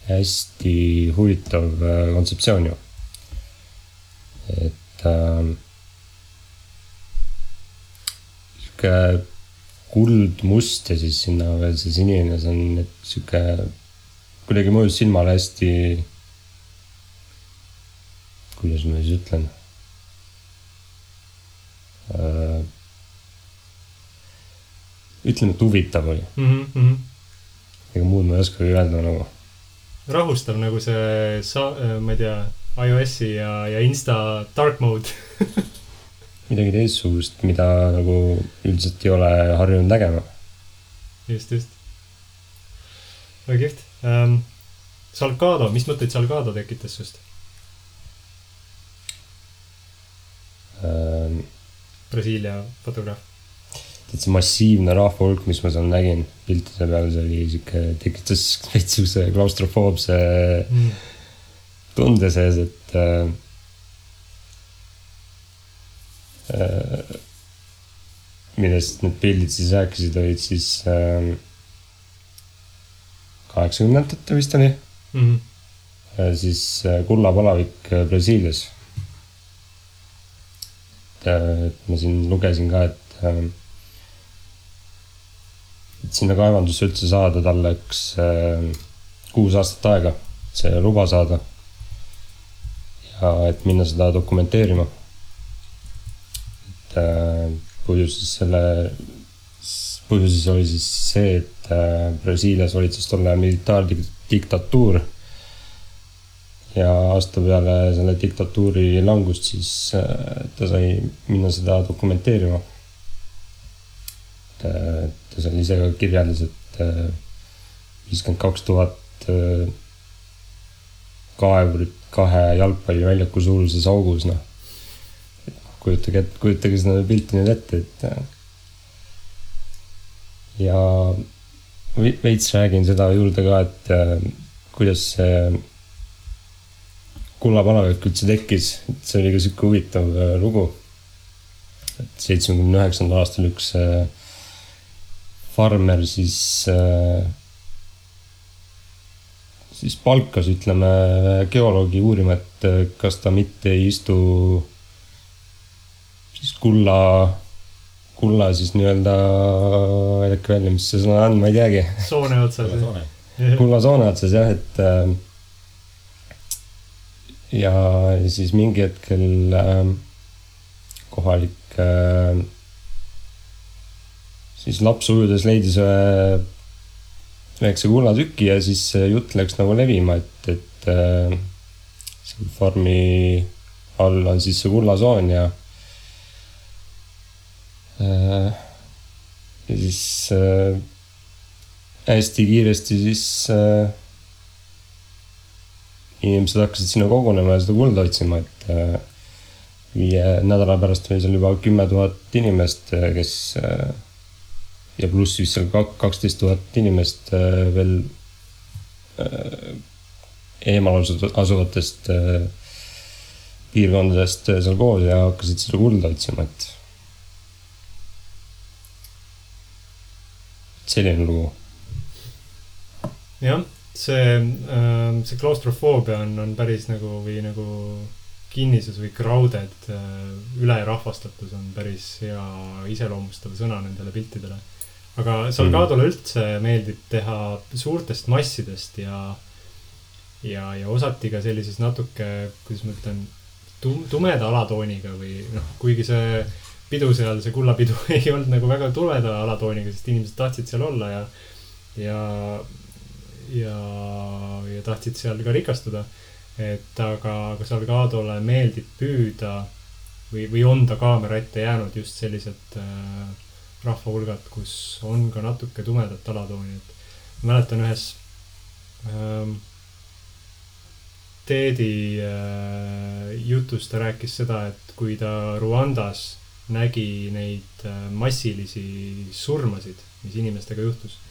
hästi huvitav kontseptsioon ju. Et siuke kuldmust ja siis sinna veel see sinine, see on siuke kuidagi mõjus silmale hästi, kuidas ma siis ütlen, ütleme, et huvitav oli. Ega muud ma ei oska öelda nagu. Rahustav nagu see, ma ei tea, iOS-i ja Insta dark mode. Midagi teistsugust, mida nagu üldiselt ei ole harjunud nägema. Just. Väga kihvt. Salgado, mis mõtteid Salgado tekitas sust? Brasiilia fotograaf. See massiivne rahvahulk, mis ma seal nägin piltide peal, see oli siuke, tekitas veitsuse klaustrofoobse tunde sees, et millest need pildid siis rääkisid, olid siis 80-ndate vist oli. Siis kullapalavik Brasiilias. Et ma siin lugesin ka, et sinna kaevandusse üldse saada talle 6 aastat aega see luba saada ja et minna seda dokumenteerima. Et põhjuses oli siis see, et Brasiilias valitses tolle militaardiktatuur ja aasta peale selle diktatuuri langust siis ta sai minna seda dokumenteerima. Ta seal ise ka kirjeldas, et 52,000 kaevurit 2 jalgpalliväljaku suuruses augus, kujutage seda pilti nüüd ette, et ja veits räägin seda juurde ka, et kuidas see kullapalavik üldse tekkis, et see oli ka siuke huvitav lugu, et 79. aastal üks farmer siis palkas, ütleme, geoloogi uurima, et kas ta mitte ei istu siis kulla siis nii-öelda äkki välja, mis see sõna on, ma ei teagi. Soone otsas. Kulla soone otsas, jah, et ja siis mingi hetkel kohalik siis laps ujudes leidis väikse kullatüki ja siis jutt läks nagu levima, et see farmi all on siis see kullasoon ja siis hästi kiiresti siis inimesed hakkasid sinna kogunema ja seda kulda otsima, et 5 nädala pärast oli seal juba 10 000 inimest, kes ja pluss vist seal 12 000 inimest veel eemal asuvatest piirkondadest seal koos ja hakkasid seda kulda otsima, et selline lugu. Jah, see klaustrofoobia on päris nagu või nagu kinnisus või krauded, ülerahvastatus on päris hea iseloomustav sõna nendele piltidele. Aga Salgadole üldse meeldib teha suurtest massidest ja osati ka sellises natuke, kuidas ma ütlen, tumeda alatooniga või noh, kuigi see pidu seal, see kullapidu ei olnud nagu väga tumeda alatooniga, sest inimesed tahtsid seal olla ja tahtsid seal ka rikastuda. Et aga Salgadole meeldib püüda või on ta kaamera ette jäänud just sellised rahvahulgad, kus on ka natuke tumedat alatooni. Et mäletan ühes Teedi jutus ta rääkis seda, et kui ta Ruandas nägi neid massilisi surmasid, mis inimestega juhtus,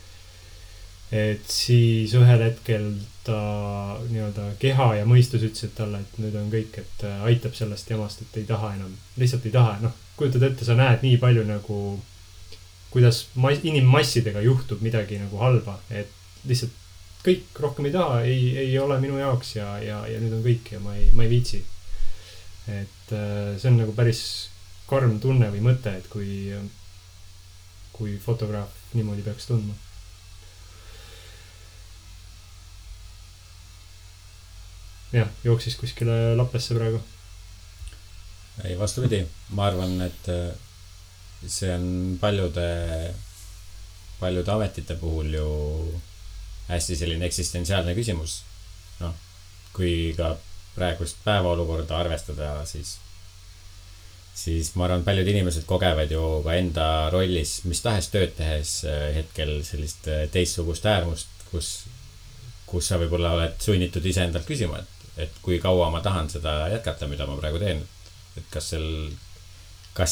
et siis ühel hetkel ta nii-öelda keha ja mõistus ütlesid talle, et nüüd on kõik, et aitab sellest jamast, et ei taha enam, lihtsalt ei taha. Noh, kujutad ette, sa näed nii palju nagu, kuidas inimmassidega juhtub midagi nagu halba, et lihtsalt kõik rohkem ei taha, ei ole minu jaoks ja nüüd on kõik ja ma ei viitsi. Et see on nagu päris karm tunne või mõte, et kui fotograaf niimoodi peaks tundma. Jah, jooksis kuskile Lappesse praegu. Ei, vastupidi. Ma arvan, et see on paljude ametite puhul ju hästi selline eksistentsiaalne küsimus. Noh, kui ka praegust päevaolukorda arvestada, siis ma arvan, paljud inimesed kogevad ju ka enda rollis, mis tahes tööd tehes hetkel sellist teistsugust äärmust, kus sa võib-olla oled sunnitud ise endalt küsima, et kui kaua ma tahan seda jätkata, mida ma praegu teen. Et kas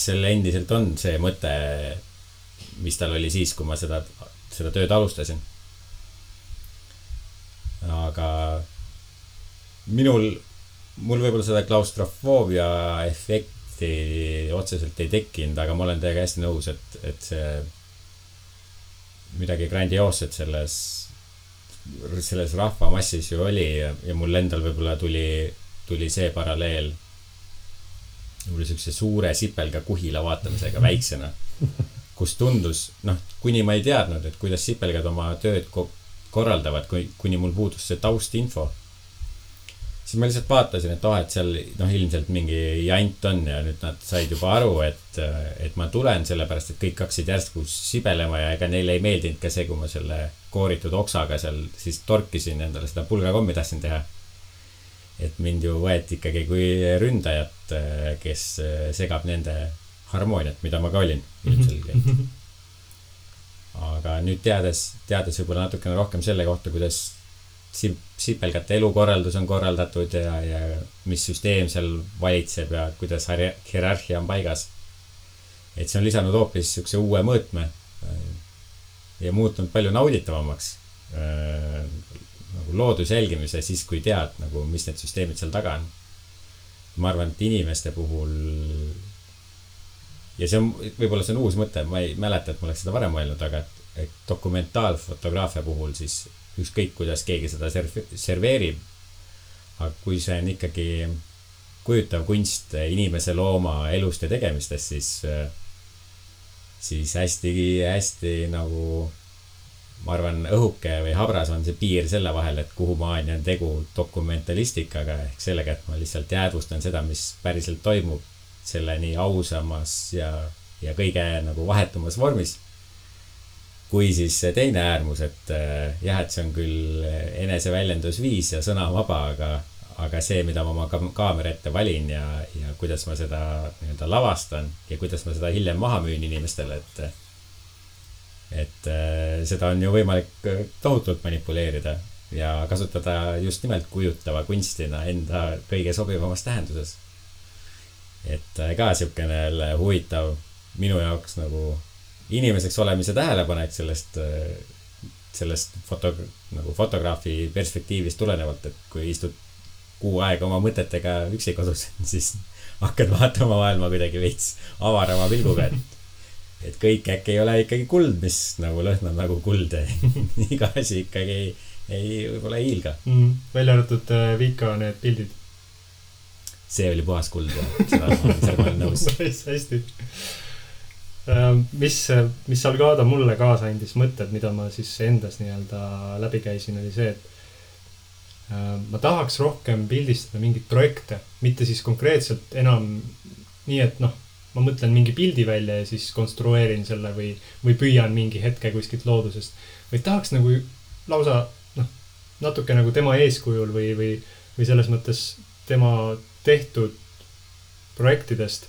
seal endiselt on see mõte, mis tal oli siis, kui ma seda tööd alustasin. Aga mul võib-olla seda klaustrofoobia efekti otseselt ei tekkinud, aga ma olen teiega hästi nõus, et see midagi grandioosset selles rahvamassis ju oli ja mul endal võib-olla tuli see paralleel sellise suure sipelga kuhila vaatamisega väiksena, kus tundus, noh, kuni ma ei teadnud, et kuidas sipelgad oma tööd korraldavad, kuni mul puudus see taustinfo. Siis ma lihtsalt vaatasin, et seal ilmselt mingi jant on ja nüüd nad said juba aru, et ma tulen sellepärast, et kõik hakkasid järsku sibelema ja ega neile ei meeldinud ka see, kui ma selle kooritud oksaga seal siis torkisin endale seda pulgakommi tahtsin teha. Et mind ju võeti ikkagi kui ründajat, kes segab nende harmooniat, mida ma ka olin ilmselgelt. Aga nüüd teades võib-olla natukene rohkem selle kohta, kuidas sipelgate elukorraldus on korraldatud ja mis süsteem seal valitseb ja kuidas hierarhia on paigas. Et see on lisanud hoopis sükse uue mõõtme ja muutunud palju nauditavamaks nagu looduse jälgimise siis, kui tead, nagu, mis need süsteemid seal taga on. Ma arvan, et inimeste puhul ja võib-olla see on uus mõte, ma ei mäleta, et ma oleks seda varem mõelnud, aga et dokumentaalfotograafia puhul siis ükskõik, kuidas keegi seda serveerib, aga kui see on ikkagi kujutav kunst inimese looma elust ja tegemistest, siis hästi nagu ma arvan, õhuke või habras on see piir selle vahel, et kuhu maani on tegu dokumentalistikaga ehk sellega, et ma lihtsalt jäädvustan seda, mis päriselt toimub selle nii ausamas ja kõige nagu vahetumas vormis. Kui siis teine äärmus, et jah, et see on küll eneseväljendusviis ja sõna vaba, aga see, mida ma oma kaamera ette valin ja kuidas ma seda nii-öelda lavastan ja kuidas ma seda hiljem maha müün inimestele, et seda on ju võimalik tohutult manipuleerida ja kasutada just nimelt kujutava kunstina enda kõige sobivamas tähenduses. Et ka siukene huvitav minu jaoks nagu inimeseks olemise tähelepanek sellest fotograafi perspektiivist tulenevalt, et kui istud kuu aega oma mõtetega üksi kodus, siis hakkad vaatama maailma kuidagi veits avarama pilguga, et kõik äkki ei ole ikkagi kuld, mis nagu lõhnab nagu kuld. Iga asi ikkagi võib-olla ei hiilga. Välja arvatud Vika need pildid. See oli puhas kuld ja seda ma olen nõus. Hästi. Mis Salgado mulle kaasa andis mõtted, mida ma siis endas nii-öelda läbi käisin, oli see, ma tahaks rohkem pildistada mingeid projekte, mitte siis konkreetselt enam nii, et noh, ma mõtlen mingi pildi välja ja siis konstrueerin selle või püüan mingi hetke kuskilt loodusest, vaid tahaks nagu lausa noh, natuke nagu tema eeskujul või selles mõttes tema tehtud projektidest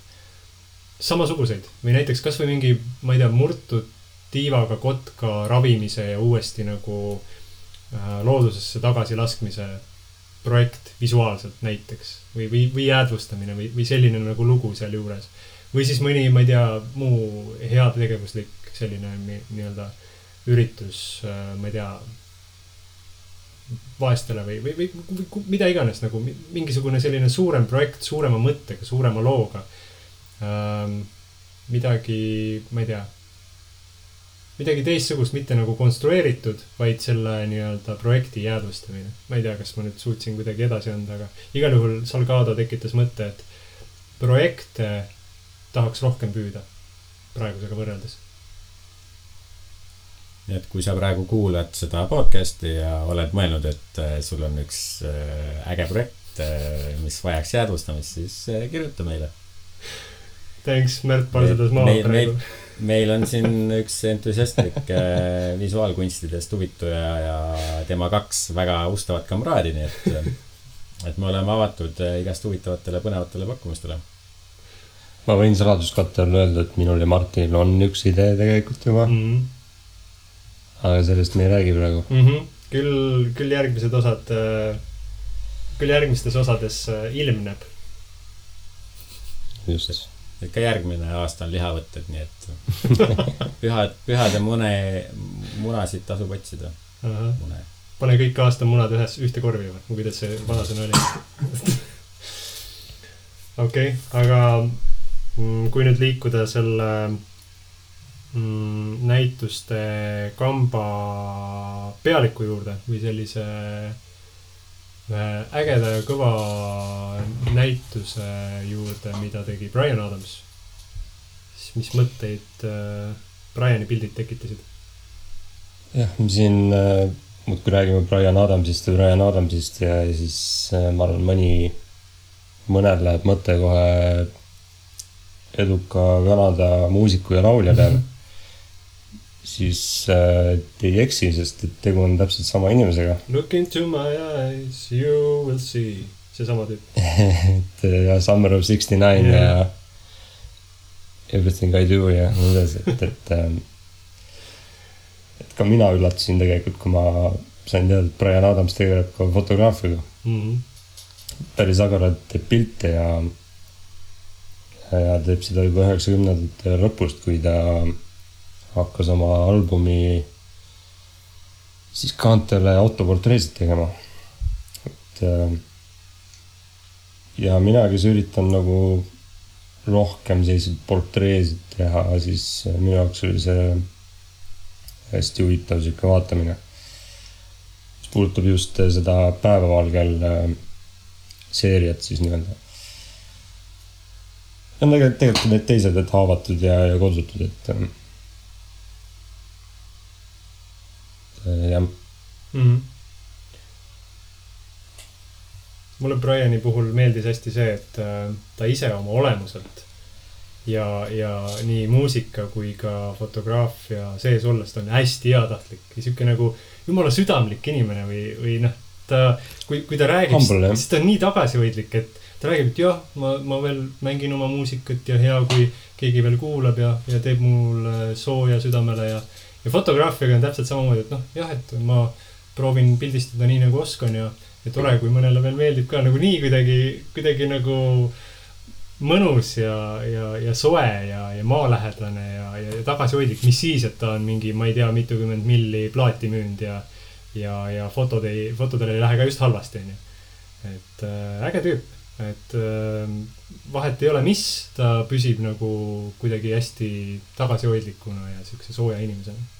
samasuguseid või näiteks kas või mingi, ma ei tea, murtud tiivaga kotka ravimise ja uuesti nagu loodusesse tagasi laskmise projekt visuaalselt näiteks või jäädvustamine või selline nagu lugu seal juures. Või siis mõni, ma ei tea, muu heategevuslik selline nii-öelda üritus, ma ei tea, vaestele või mida iganes nagu mingisugune selline suurem projekt, suurema mõttega, suurema looga. Midagi, ma ei tea, midagi teistsugust, mitte nagu konstrueeritud, vaid selle nii-öelda projekti jäädvustamine. Ma ei tea, kas ma nüüd suutsin kuidagi edasi anda, aga igal juhul Salgado tekitas mõtte, et projekte tahaks rohkem püüda praegusega võrreldes. Nii et kui sa praegu kuulad seda podcasti ja oled mõelnud, et sul on üks äge projekt, mis vajaks jäädvustamist, siis kirjuta meile. Thanks, Märt Parsedas maad praegu. Meil on siin üks entusiastlik visuaalkunstidest huvituja ja tema 2 väga ustavat kamraadi, nii et me oleme avatud igast huvitavatele põnevatele pakkumistele. Ma võin saladuskattel öelda, et minul ja Martinil on üks idee tegelikult juba. Aga sellest me ei räägi praegu. Küll järgmistes osades ilmneb. Just. Ka järgmine aasta on lihavõtted, nii et pühade munasid tasub otsida. Pane kõik aasta munad ühte korvi või? Kuidas see vanasõna oli? Okei, aga kui nüüd liikuda selle näituste kamba pealiku juurde või sellise ägeda ja kõva näituse juurde, mida tegi Bryan Adams. Siis mis mõtteid Bryani pildid tekitasid? Jah, me siin muudkui räägime Bryan Adamsist ja siis ma arvan, mõned läheb mõte kohe eduka Kanada muusiku ja laulja peale. Siis te ei eksi, sest tegu on täpselt sama inimesega. Look into my eyes, you will see. See sama tüüp. ja Summer of 69 ja Everything I Do ja mõnes, et ka mina üllatasin tegelikult, kui ma sain teada, et Bryan Adams tegeleb ka fotograafiga. Päris agarad teeb pilte ja teeb seda juba 90ndate lõpust, kui ta hakkas oma albumi siis kaantele autoportreesid tegema. Ja mina, kes üritan nagu rohkem selliseid portreesid teha, siis minu jaoks oli see hästi huvitav siuke vaatamine. Mis puudutab just seda päevavalgel seeriat siis nii-öelda. Ja tegelikult need teised, et haavatud ja kodsutud, et jah. Mulle Bryani puhul meeldis hästi see, et ta ise oma olemuselt ja nii muusika kui ka fotograafia sees ollest on hästi heatahtlik ja siuke nagu jumala südamlik inimene või noh, kui ta räägib, siis ta on nii tagasihoidlik, et ta räägib, et jah, ma veel mängin oma muusikat ja hea, kui keegi veel kuulab ja teeb mul sooja südamele ja fotograafiaga on täpselt samamoodi, et noh, jah, et ma proovin pildistada nii nagu oskan ja tore, kui mõnele veel meeldib ka nagu nii kuidagi nagu mõnus ja soe ja maalähedane ja tagasihoidlik, mis siis, et ta on mingi, ma ei tea, mitukümmend milli plaati müünd ja fotodel ei lähe ka just halvasti. Et äge tüüp, et vahet ei ole, mis, ta püsib nagu kuidagi hästi tagasihoidlikuna ja siukse sooja inimesena.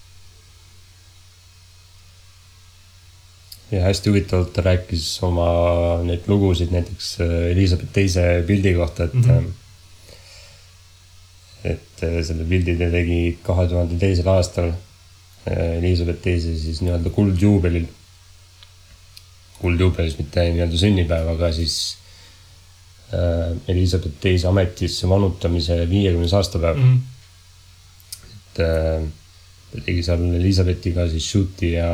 Ja hästi huvitavalt ta rääkis oma neid lugusid näiteks Elizabeth teise pildi kohta, et selle pildi ta tegi 2002. aastal Elizabeth teise siis nii-öelda kuldjuubelil. kuldjuubelis, mitte nii-öelda sünnipäev, aga siis Elizabeth teise ametisse vanutamise 50 aastapäev. Et ta tegi seal Elizabethiga siis shooti ja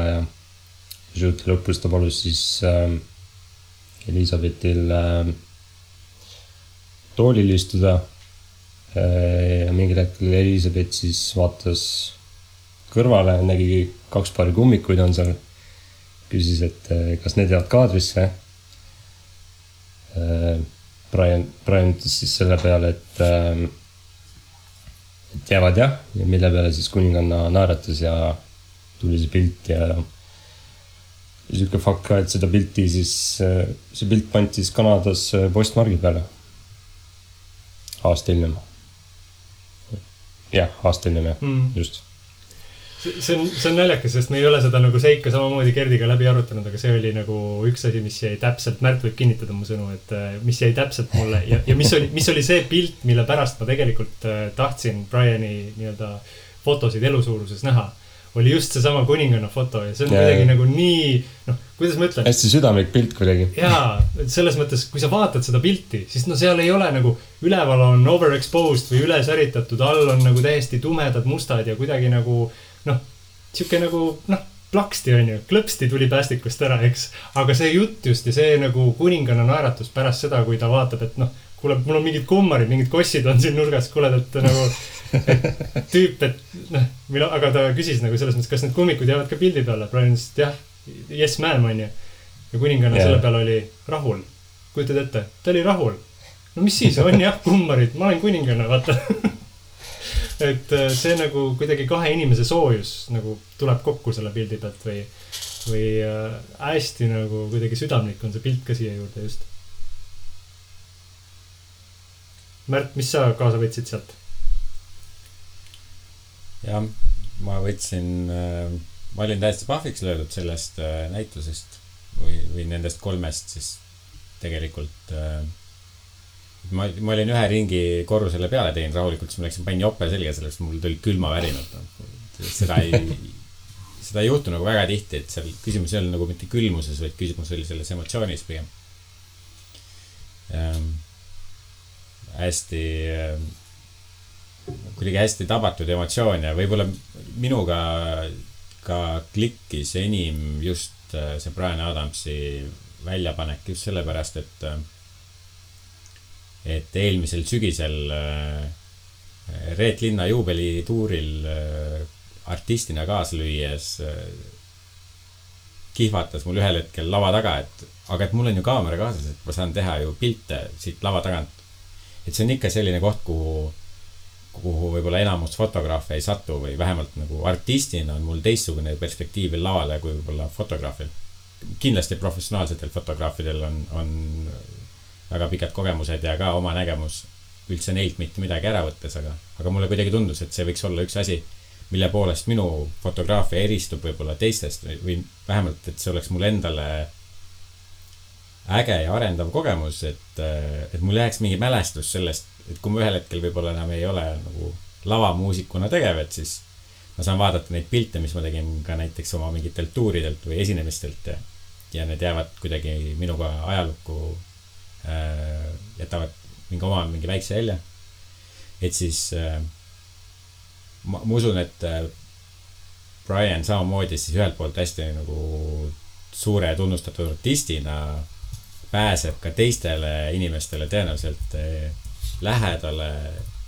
shooti lõpus ta palus siis Elizabethil toolil istuda ja mingil hetkel Elizabeth siis vaatas kõrvale, nägi 2 paari kummikuid on seal, küsis, et kas need jäävad kaadrisse. Brian ütles siis selle peale, et jäävad jah, ja mille peale siis kuninganna naeratas ja tuli see pilt ja selline fakt ka, et seda pilti siis, see pilt pandi siis Kanadas postmargi peale. Aasta hiljem. Jah, aasta hiljem, just. See on naljakas, sest me ei ole seda nagu seika samamoodi Gerdiga läbi arutanud, aga see oli nagu üks asi, mis jäi täpselt, Märt võib kinnitada mu sõnu, et mis jäi täpselt mulle ja mis oli see pilt, mille pärast ma tegelikult tahtsin Briani nii-öelda fotosid elusuuruses näha, oli just see sama kuninganna foto ja see on kuidagi nagu nii, kuidas ma ütlen? Hästi südamlik pilt kuidagi. Jaa, selles mõttes, kui sa vaatad seda pilti, siis seal ei ole nagu üleval on overexposed või ülesäritatud, all on nagu täiesti tumedad mustad ja kuidagi nagu siuke nagu, plaksti on ju, klõpsti tuli päästikust ära, eks, aga see jutt just ja see nagu kuninganna naeratus pärast seda, kui ta vaatab, et kuule, mul on mingid kummarid, mingid kossid on siin nurgas, kuule, et nagu et tüüp, et aga ta küsis nagu selles mõttes, kas need kummikud jäävad ka pildi peale, Brian ütles, et jah, yes ma'am on ju, ja kuninganna selle peale oli rahul, kujutad ette, ta oli rahul, no mis siis on jah, kummarid, ma olen kuninganna, vaata et see nagu kuidagi 2 inimese soojus nagu tuleb kokku selle pildi pealt või hästi nagu kuidagi südamlik on see pilt ka siia juurde just. Märt, mis sa kaasa võtsid sealt? Ja, ma võtsin, ma olin täiesti pahviks löödud sellest näitusest või nendest 3 siis tegelikult ma olin 1 ringi korrusele peale teinud rahulikult, siis ma läksin panin jope selga sellest, mul tuli külma värinud. Seda ei juhtu nagu väga tihti, et seal küsimus ei ole nagu mitte külmuses, vaid küsimus oli selles emotsioonis pigem. Kuidagi hästi tabatud emotsioon ja võib-olla minuga ka klikkis enim just see Brian Adamsi väljapanek just sellepärast, et eelmisel sügisel Reet Linna juubelituuril artistina kaaslüües kihvatas mul ühel hetkel lava taga, et mul on ju kaamera kaasas, et ma saan teha ju pilte siit lava tagant. Et see on ikka selline koht, kuhu võib-olla enamus fotograafe ei satu või vähemalt nagu artistina on mul teistsugune perspektiivil lavale kui võib-olla fotograafil. Kindlasti professionaalsetel fotograafidel on väga pikad kogemused ja ka oma nägemus üldse neilt mitte midagi ära võttes, aga mulle kuidagi tundus, et see võiks olla üks asi, mille poolest minu fotograafia eristub võib-olla teistest või vähemalt, et see oleks mul endale äge ja arendav kogemus, et mul jääks mingi mälestus sellest, et kui ma ühel hetkel võib-olla enam ei ole nagu lavamuusikuna tegev, et siis ma saan vaadata neid pilte, mis ma tegin ka näiteks oma mingitelt tuuridelt või esinemistelt ja need jäävad kuidagi minuga ajalukku jätavad mingi väikse jälje. Et siis ma usun, et Brian samamoodi siis ühelt poolt hästi nagu suure tunnustatud artistina pääseb ka teistele inimestele tõenäoliselt lähedale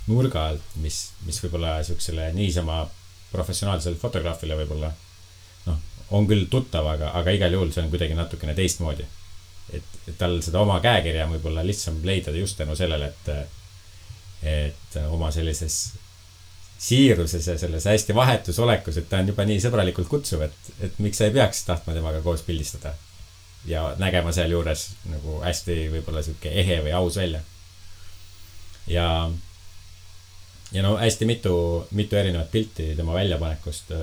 nurga alt, mis võib-olla siuksele niisama professionaalsele fotograafile võib-olla on küll tuttav, aga igal juhul see on kuidagi natukene teistmoodi. Et tal seda oma käekirja võib-olla lihtsam leida just tänu sellele, et oma sellises siiruses ja selles hästi vahetus olekus, et ta on juba nii sõbralikult kutsuv, et miks sa ei peaks tahtma temaga koos pildistada ja nägema seal juures nagu hästi võib-olla siuke ehe või aus välja. Ja hästi mitu erinevat pilti tema väljapanekust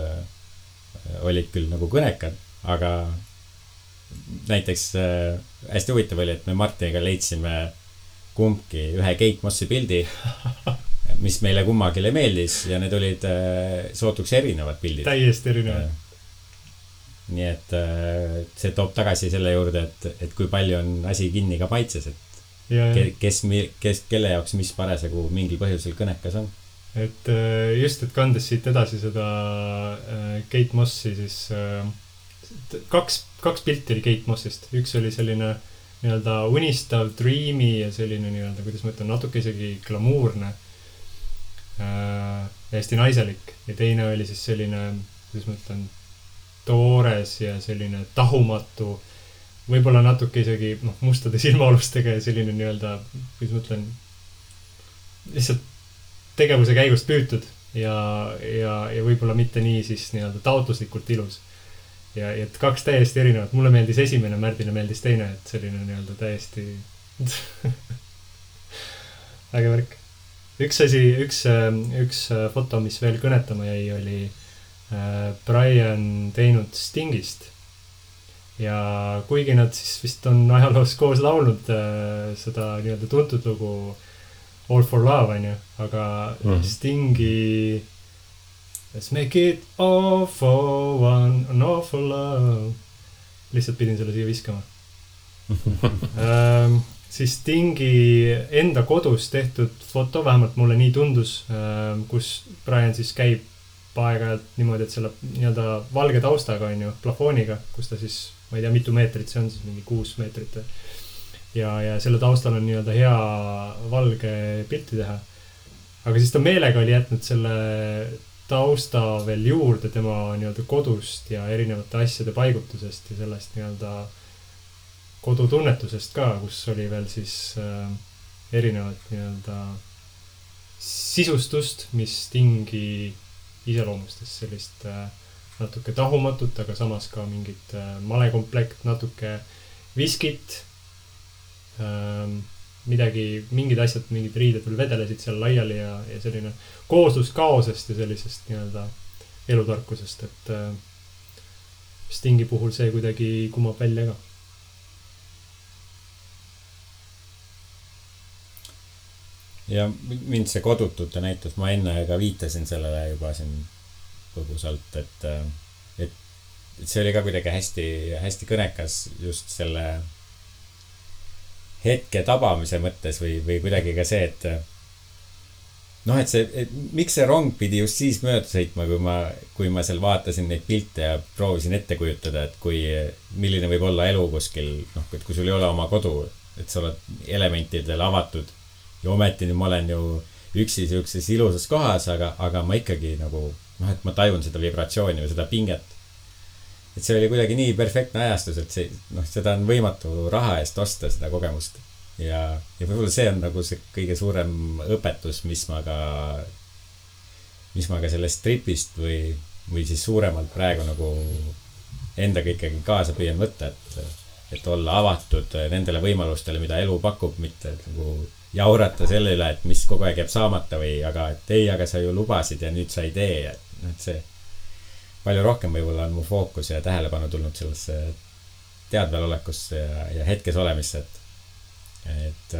olid küll nagu kõnekad, aga näiteks hästi huvitav oli, et me Martiniga leidsime kumbki ühe Kate Mossi pildi, mis meile kummagile meeldis ja need olid sootuks erinevad pildid. Täiesti erinevad. nii et see toob tagasi selle juurde, et kui palju on asi kinni ka maitses, et kelle jaoks mis parasjagu mingil põhjusel kõnekas on. Et just, et kandes siit edasi seda Kate Mossi, siis kaks pilti oli Kate Mossist. Üks oli selline nii-öelda unistav, dreamy ja selline nii-öelda, kuidas ma ütlen, natuke isegi glamuurne, hästi naiselik. Ja teine oli siis selline, kuidas ma ütlen, toores ja selline tahumatu, võib-olla natuke isegi mustade silmaolustega ja selline nii-öelda, kuidas ma ütlen, lihtsalt tegevuse käigust püütud ja võib-olla mitte nii siis nii-öelda taotluslikult ilus. Ja et kaks täiesti erinevat. Mulle meeldis esimene, Märdile meeldis teine, et selline nii-öelda täiesti äge värk. Üks foto, mis veel kõnetama jäi, oli Brian teinud Stingist. Ja kuigi nad siis vist on ajaloos koos laulnud seda nii-öelda tuntud lugu All for Love, on ju, aga Stingi Let's make it all for one, an all for love. Lihtsalt pidin selle siia viskama. Siis Stingi enda kodus tehtud foto, vähemalt mulle nii tundus, kus Brian siis käib aeg-ajalt niimoodi, et selle nii-öelda valge taustaga, on ju, plafooniga, kus ta siis, ma ei tea, mitu meetrit see on, siis mingi 6 meetrit. Ja selle taustal on nii-öelda hea valge pilti teha. Aga siis ta meelega oli jätnud selle tausta veel juurde tema nii-öelda kodust ja erinevate asjade paigutusest ja sellest nii-öelda kodutunnetusest ka, kus oli veel siis erinevat nii-öelda sisustust, mis Stingi iseloomustas sellist natuke tahumatut, aga samas ka mingit malekomplekt, natuke viskit, mingid asjad, mingid riided veel vedelesid seal laiali ja selline kooslus kaosest ja sellisest nii-öelda elutarkusest, et Stingi puhul see kuidagi kumab välja ka. Ja mind see kodutute näitus, ma enne ka viitasin sellele juba siin põgusalt, et see oli ka kuidagi hästi kõnekas just selle hetke tabamise mõttes või kuidagi ka see, et miks see rong pidi just siis mööda sõitma, kui ma seal vaatasin neid pilte ja proovisin ette kujutada, et milline võib olla elu kuskil, et kui sul ei ole oma kodu, et sa oled elementidele avatud ja ometi nüüd ma olen ju üksi siukses ilusas kohas, aga ma ikkagi nagu, et ma tajun seda vibratsiooni või seda pinget. Et see oli kuidagi nii perfektne ajastus, et seda on võimatu raha eest osta, seda kogemust. Ja võib-olla see on nagu see kõige suurem õpetus, mis ma ka sellest tripist või siis suuremalt praegu nagu endaga ikkagi kaasa püüan võtta, et olla avatud nendele võimalustele, mida elu pakub, mitte nagu jaurata selle üle, et mis kogu aeg jääb saamata aga sa ju lubasid ja nüüd sa ei tee. Et see palju rohkem võib-olla on mu fookus ja tähelepanu tulnud sellesse teadvelolekusse ja hetkes olemisse, et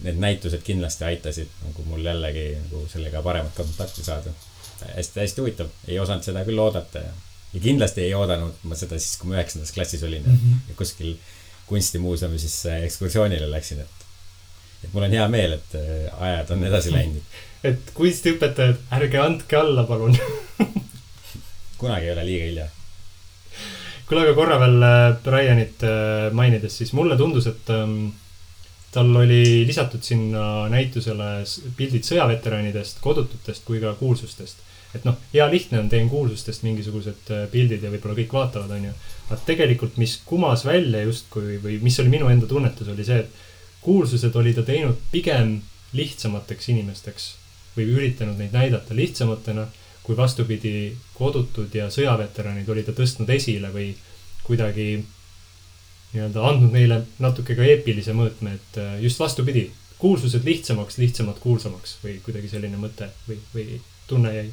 need näitused kindlasti aitasid nagu mul jällegi nagu sellega paremat kontakti saada. Hästi huvitav. Ei osanud seda küll oodata ja kindlasti ei oodanud ma seda siis, kui ma 9. klassis olin ja kuskil kunstimuuseumi siis ekskursioonile läksin, et mul on hea meel, et ajad on edasi läinud. Et kunstiõpetajad, ärge andke alla, palun. Kunagi ei ole liiga hilja. Kuule, aga korra veel Brianit mainides, siis mulle tundus, et tal oli lisatud sinna näitusele pildid sõjaveteranidest, kodututest kui ka kuulsustest. Et hea lihtne on, teen kuulsustest mingisugused pildid ja võib-olla kõik vaatavad, on ju. Aga tegelikult, mis kumas välja justkui või mis oli minu enda tunnetus, oli see, et kuulsused oli ta teinud pigem lihtsamateks inimesteks või üritanud neid näidata lihtsamatena, kui vastupidi kodutud ja sõjaveteranid oli ta tõstnud esile või kuidagi nii-öelda andnud neile natuke ka eepilise mõõtme, et just vastupidi, kuulsused lihtsamad kuulsamaks või kuidagi selline mõte või tunne jäi.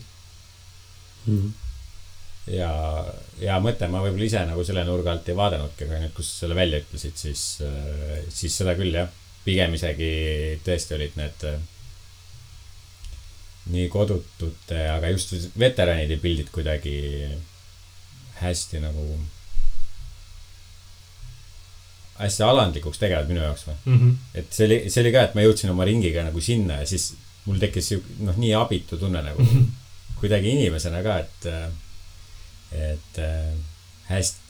Ja mõte, ma võib-olla ise nagu selle nurga alt ei vaadanudki, aga nüüd, kus selle välja ütlesid, siis seda küll, jah. Pigem isegi tõesti olid need nii kodutute, aga just veteranide pildid kuidagi hästi nagu hästi alandlikuks tegevad minu jaoks või. Et see oli ka, et ma jõudsin oma ringiga nagu sinna ja siis mul tekkis nii abitu tunne nagu kuidagi inimesena ka, et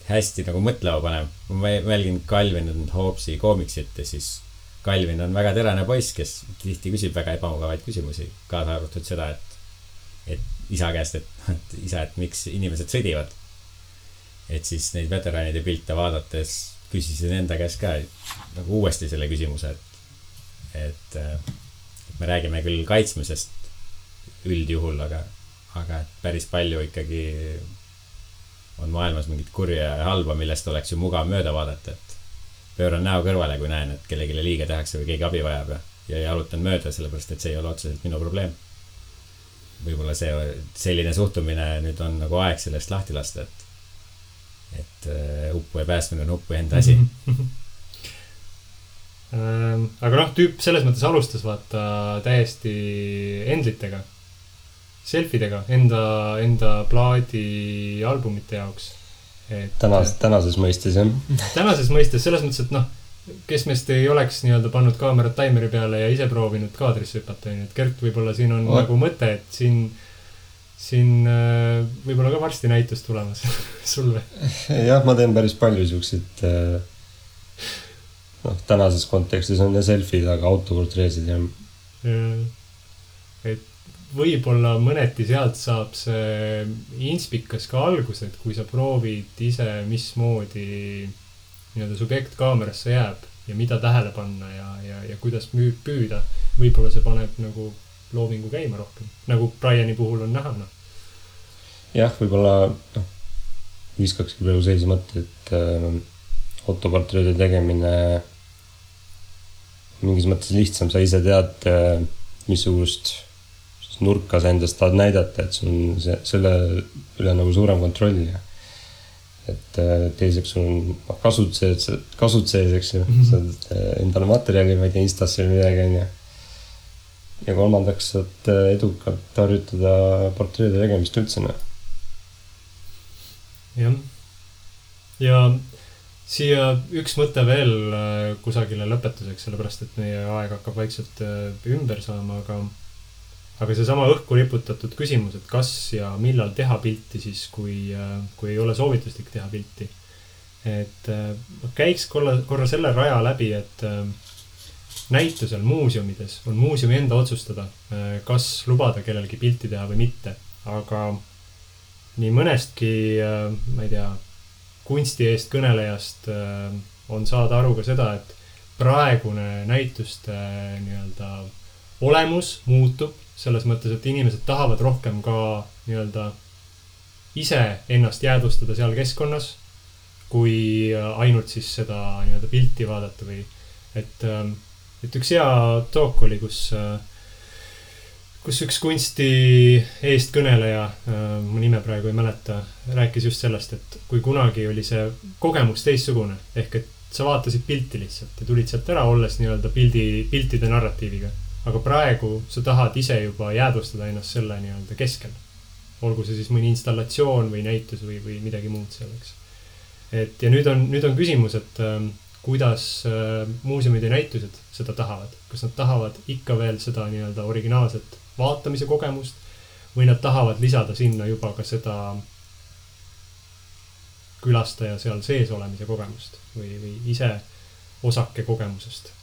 hästi nagu mõtlema panev. Ma mälgin Calvin and Hobbesi koomiksit ja siis Calvin on väga terane poiss, kes tihti küsib väga ebamugavaid küsimusi, kaasa arvatud seda, et isa käest, et isa, et miks inimesed sõdivad. Et siis neid veteranide pilte vaadates küsisin enda käest ka nagu uuesti selle küsimuse, et me räägime küll kaitsmisest üldjuhul, aga et päris palju ikkagi on maailmas mingit kurja ja halba, millest oleks ju mugav mööda vaadata, et pööran näo kõrvale, kui näen, et kellegile liiga tehakse või keegi abi vajab ja jalutan mööda, sellepärast, et see ei ole otseselt minu probleem. Võib-olla selline suhtumine nüüd on nagu aeg sellest lahti lasta, et uppu ja päästmine on uppu enda asi. Aga tüüp selles mõttes alustas vaata täiesti endlitega, selfidega, enda plaadi albumite jaoks. Tänases mõistes, jah. Tänases mõistes, selles mõttes, et kes meist ei oleks nii-öelda pannud kaamerat taimeri peale ja ise proovinud kaadrisse hüpata, et Gert, võib-olla siin on nagu mõte, et siin võib-olla ka varsti näitus tulemas sul või? Jah, ma teen päris palju siukseid tänases kontekstis on ja selfid, aga autoportreesid ja et võib-olla mõneti sealt saab see inspikas ka algus, et kui sa proovid ise, mismoodi nii-öelda subjekt kaamerasse jääb ja mida tähele panna ja kuidas püüda, võib-olla see paneb nagu loovingu käima rohkem, nagu Briani puhul on näha. Jah, võib-olla viskakski praegu seisi mõtte, et autoportreede tegemine mingis mõttes lihtsam, sa ise tead, missugust nurka sa endast tahad näidata, et sul on selle üle nagu suurem kontroll ja et teiseks sul on kasud sees, eks ju, saad endale materjali, ma ei tea, Instasse või midagi ja kolmandaks saad edukalt harjutada portreede tegemist üldse. Jah. Ja siia üks mõte veel kusagile lõpetuseks, sellepärast, et meie aeg hakkab vaikselt ümber saama, aga see sama õhku riputatud küsimus, et kas ja millal teha pilti siis, kui ei ole soovituslik teha pilti. Et käiks korra selle raja läbi, et näitusel muuseumides on muuseumi enda otsustada, kas lubada kellelgi pilti teha või mitte. Aga nii mõnestki, ma ei tea, kunsti eest kõnelejast on saada aru ka seda, et praegune näituste nii-öelda olemus muutub selles mõttes, et inimesed tahavad rohkem ka nii-öelda ise ennast jäädvustada seal keskkonnas, kui ainult siis seda nii-öelda pilti vaadata või et üks hea talk oli, kus üks kunsti eestkõneleja, mu nime praegu ei mäleta, rääkis just sellest, et kui kunagi oli see kogemus teistsugune, ehk et sa vaatasid pilti lihtsalt ja tulid sealt ära, olles nii-öelda piltide narratiiviga. Aga praegu sa tahad ise juba jäädvustada ennast selle nii-öelda keskel. Olgu see siis mõni installatsioon või näitus või midagi muud selleks. Ja nüüd on küsimus, et kuidas muuseumid ja näitused seda tahavad. Kas nad tahavad ikka veel seda nii-öelda originaalset vaatamise kogemust või nad tahavad lisada sinna juba ka seda külastaja seal sees olemise kogemust või ise osake kogemusest.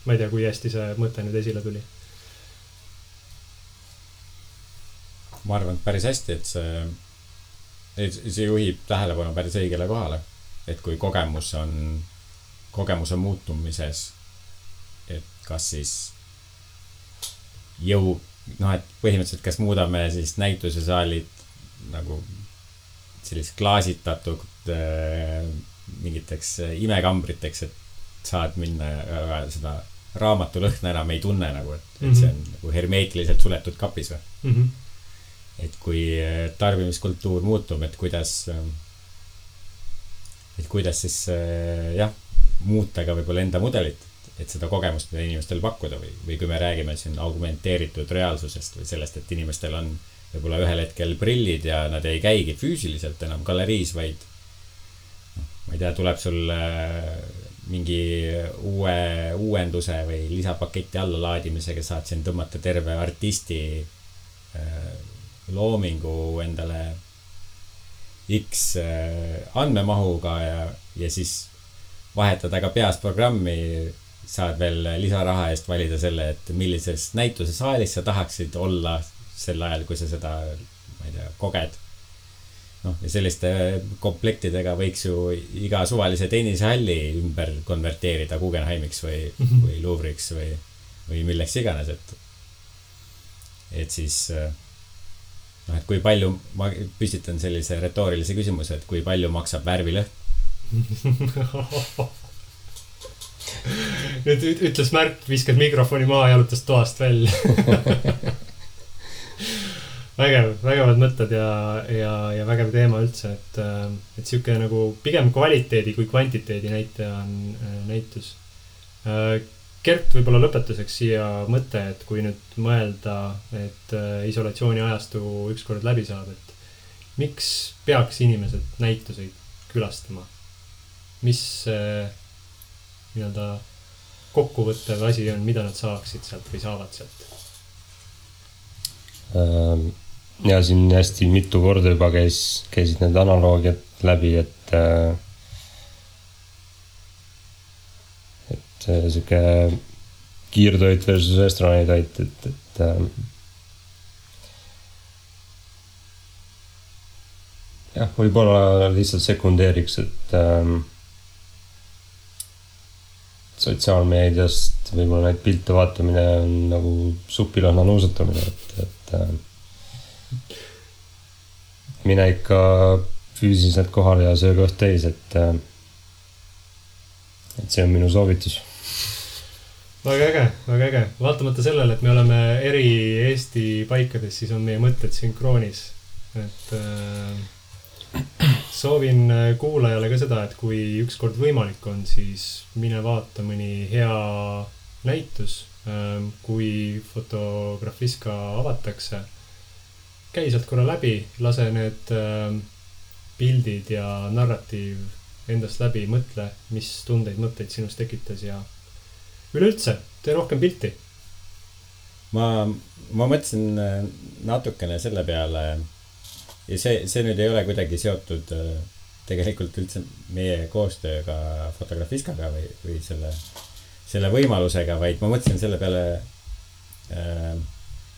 Ma ei tea, kui hästi see mõte nüüd esile tuli. Ma arvan, et päris hästi, et see juhib tähelepanu päris õigele kohale. Et kui kogemus on muutumises, et kas siis et põhimõtteliselt kas muudame siis näitusesaalid nagu sellist klaasitatud mingiteks imekambriteks, et saad minna seda raamatu lõhna enam ei tunne nagu, et see on nagu hermeetiliselt suletud kapis või. Et kui tarbimiskultuur muutub, et kuidas siis muuta ka võib-olla enda mudelit, et seda kogemust mida inimestel pakkuda või kui me räägime siin augmenteeritud reaalsusest või sellest, et inimestel on võib-olla ühel hetkel prillid ja nad ei käigi füüsiliselt enam galeriis, vaid ma ei tea, tuleb sul mingi uuenduse või lisapaketti alla laadimisega saad siin tõmmata terve artisti loomingu endale X andmemahuga ja siis vahetada ka peas programmi, saad veel lisaraha eest valida selle, et millises näitusesaalis sa tahaksid olla sel ajal, kui sa seda, ma ei tea, koged. Ja selliste komplektidega võiks ju iga suvalise tennisehalli ümber konverteerida Guggenheimiks või Louvre'iks või milleks iganes, et siis et kui palju, ma püstitan sellise retoorilise küsimuse, et kui palju maksab värvilõhn? Nüüd ütles Märt, viskas mikrofoni maha ja jalutas toast välja. Vägevad mõtted ja vägev teema üldse, et siuke nagu pigem kvaliteedi kui kvantiteedi näitaja on näitus. Gert, võib-olla lõpetuseks siia mõte, et kui nüüd mõelda, et isolatsiooni ajastu ükskord läbi saab, et miks peaks inimesed näituseid külastama? Mis nii-öelda kokkuvõttev asi on, mida nad saaksid sealt või saavad sealt? Ja siin hästi mitu korda juba käisid need analoogiad läbi, et siuke kiirtoit versus restorانitoit, et jah, võib-olla lihtsalt sekundeeriks, et sotsiaalmeediast võib-olla neid pilte vaatamine on nagu supilõhna nuusutamine, et mine ikka füüsiliselt kohale ja söö kõht täis, et see on minu soovitus. Väga äge. Vaatamata sellele, et me oleme eri Eesti paikades, siis on meie mõtted sünkroonis. Et soovin kuulajale ka seda, et kui ükskord võimalik on, siis mine vaata mõni hea näitus, kui Fotografiska avatakse. Käi sealt korra läbi, lase need pildid ja narratiiv endast läbi, mõtle, mis tundeid, mõtteid sinust tekitas ja üleüldse, tee rohkem pilti. Ma mõtlesin natukene selle peale ja see nüüd ei ole kuidagi seotud tegelikult üldse meie koostööga Fotografiskaga või selle võimalusega, vaid ma mõtlesin selle peale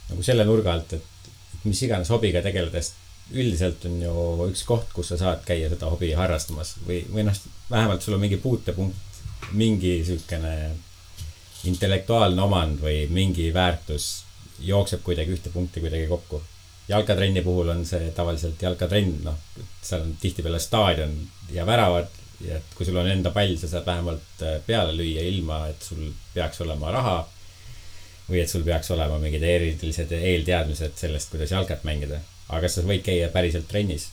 nagu selle nurga alt, et mis iganes hobiga tegeledes üldiselt on ju üks koht, kus sa saad käia seda hobi harrastamas või vähemalt sul on mingi puutepunkt, mingi sükene intellektuaalne omand või mingi väärtus jookseb kuidagi ühte punkti kuidagi kokku. Jalkatrenni puhul on see tavaliselt jalkatrenn, seal on tihtipeale staadion ja väravad ja et kui sul on enda pall, sa saad vähemalt peale lüüa ilma, et sul peaks olema raha või et sul peaks olema mingid erilised eelteadmised sellest, kuidas jalkat mängida. Aga sa võid käia päriselt trennis.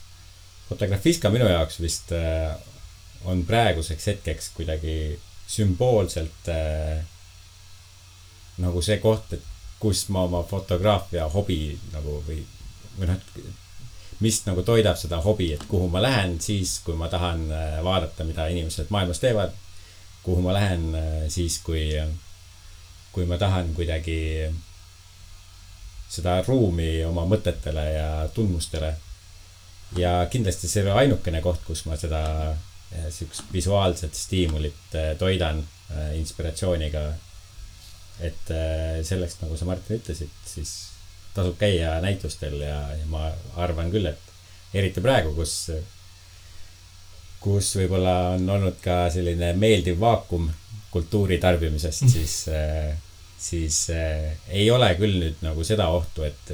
Fotografiska minu jaoks vist on praeguseks hetkeks kuidagi sümboolselt nagu see koht, et kus ma oma fotograafia hobi nagu või mis nagu toidab seda hobi, et kuhu ma lähen siis, kui ma tahan vaadata, mida inimesed maailmas teevad, kuhu ma lähen siis, kui ma tahan kuidagi seda ruumi oma mõtetele ja tundmustele. Ja kindlasti see on ainukene koht, kus ma seda sihukest visuaalset stiimulit toidan inspiratsiooniga. Et selleks, nagu sa Martin ütlesid, siis tasub käia näitustel ja ma arvan küll, et eriti praegu, kus võib-olla on olnud ka selline meeldiv vaakum kultuuri tarbimisest, siis ei ole küll nüüd nagu seda ohtu, et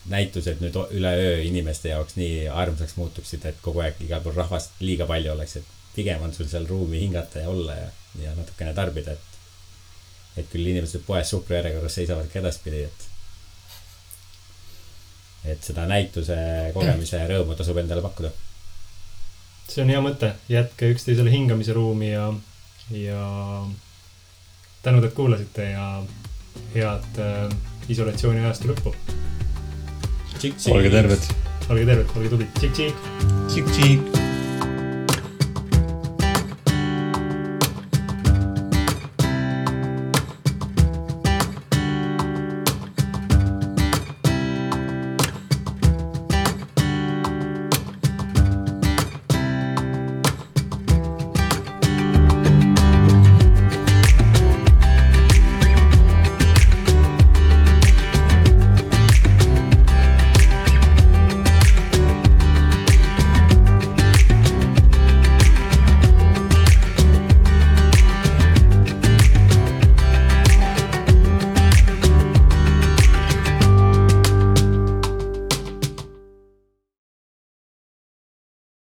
näitused nüüd üleöö inimeste jaoks nii armsaks muutuksid, et kogu aeg igal pool rahvast liiga palju oleks, et pigem on sul seal ruumi hingata ja olla ja natukene tarbida, et küll inimesed poes suhkru järjekorras seisavad ka edaspidi, et seda näituse kogemise rõõmu tasub endale pakkuda. See on hea mõte, jätke üksteisele hingamise ruumi ja tänud, et kuulasite ja head isolatsiooni ajastu lõppu. Olge terved. Olge tublid. Tšik-tšik. Tšik-tšik.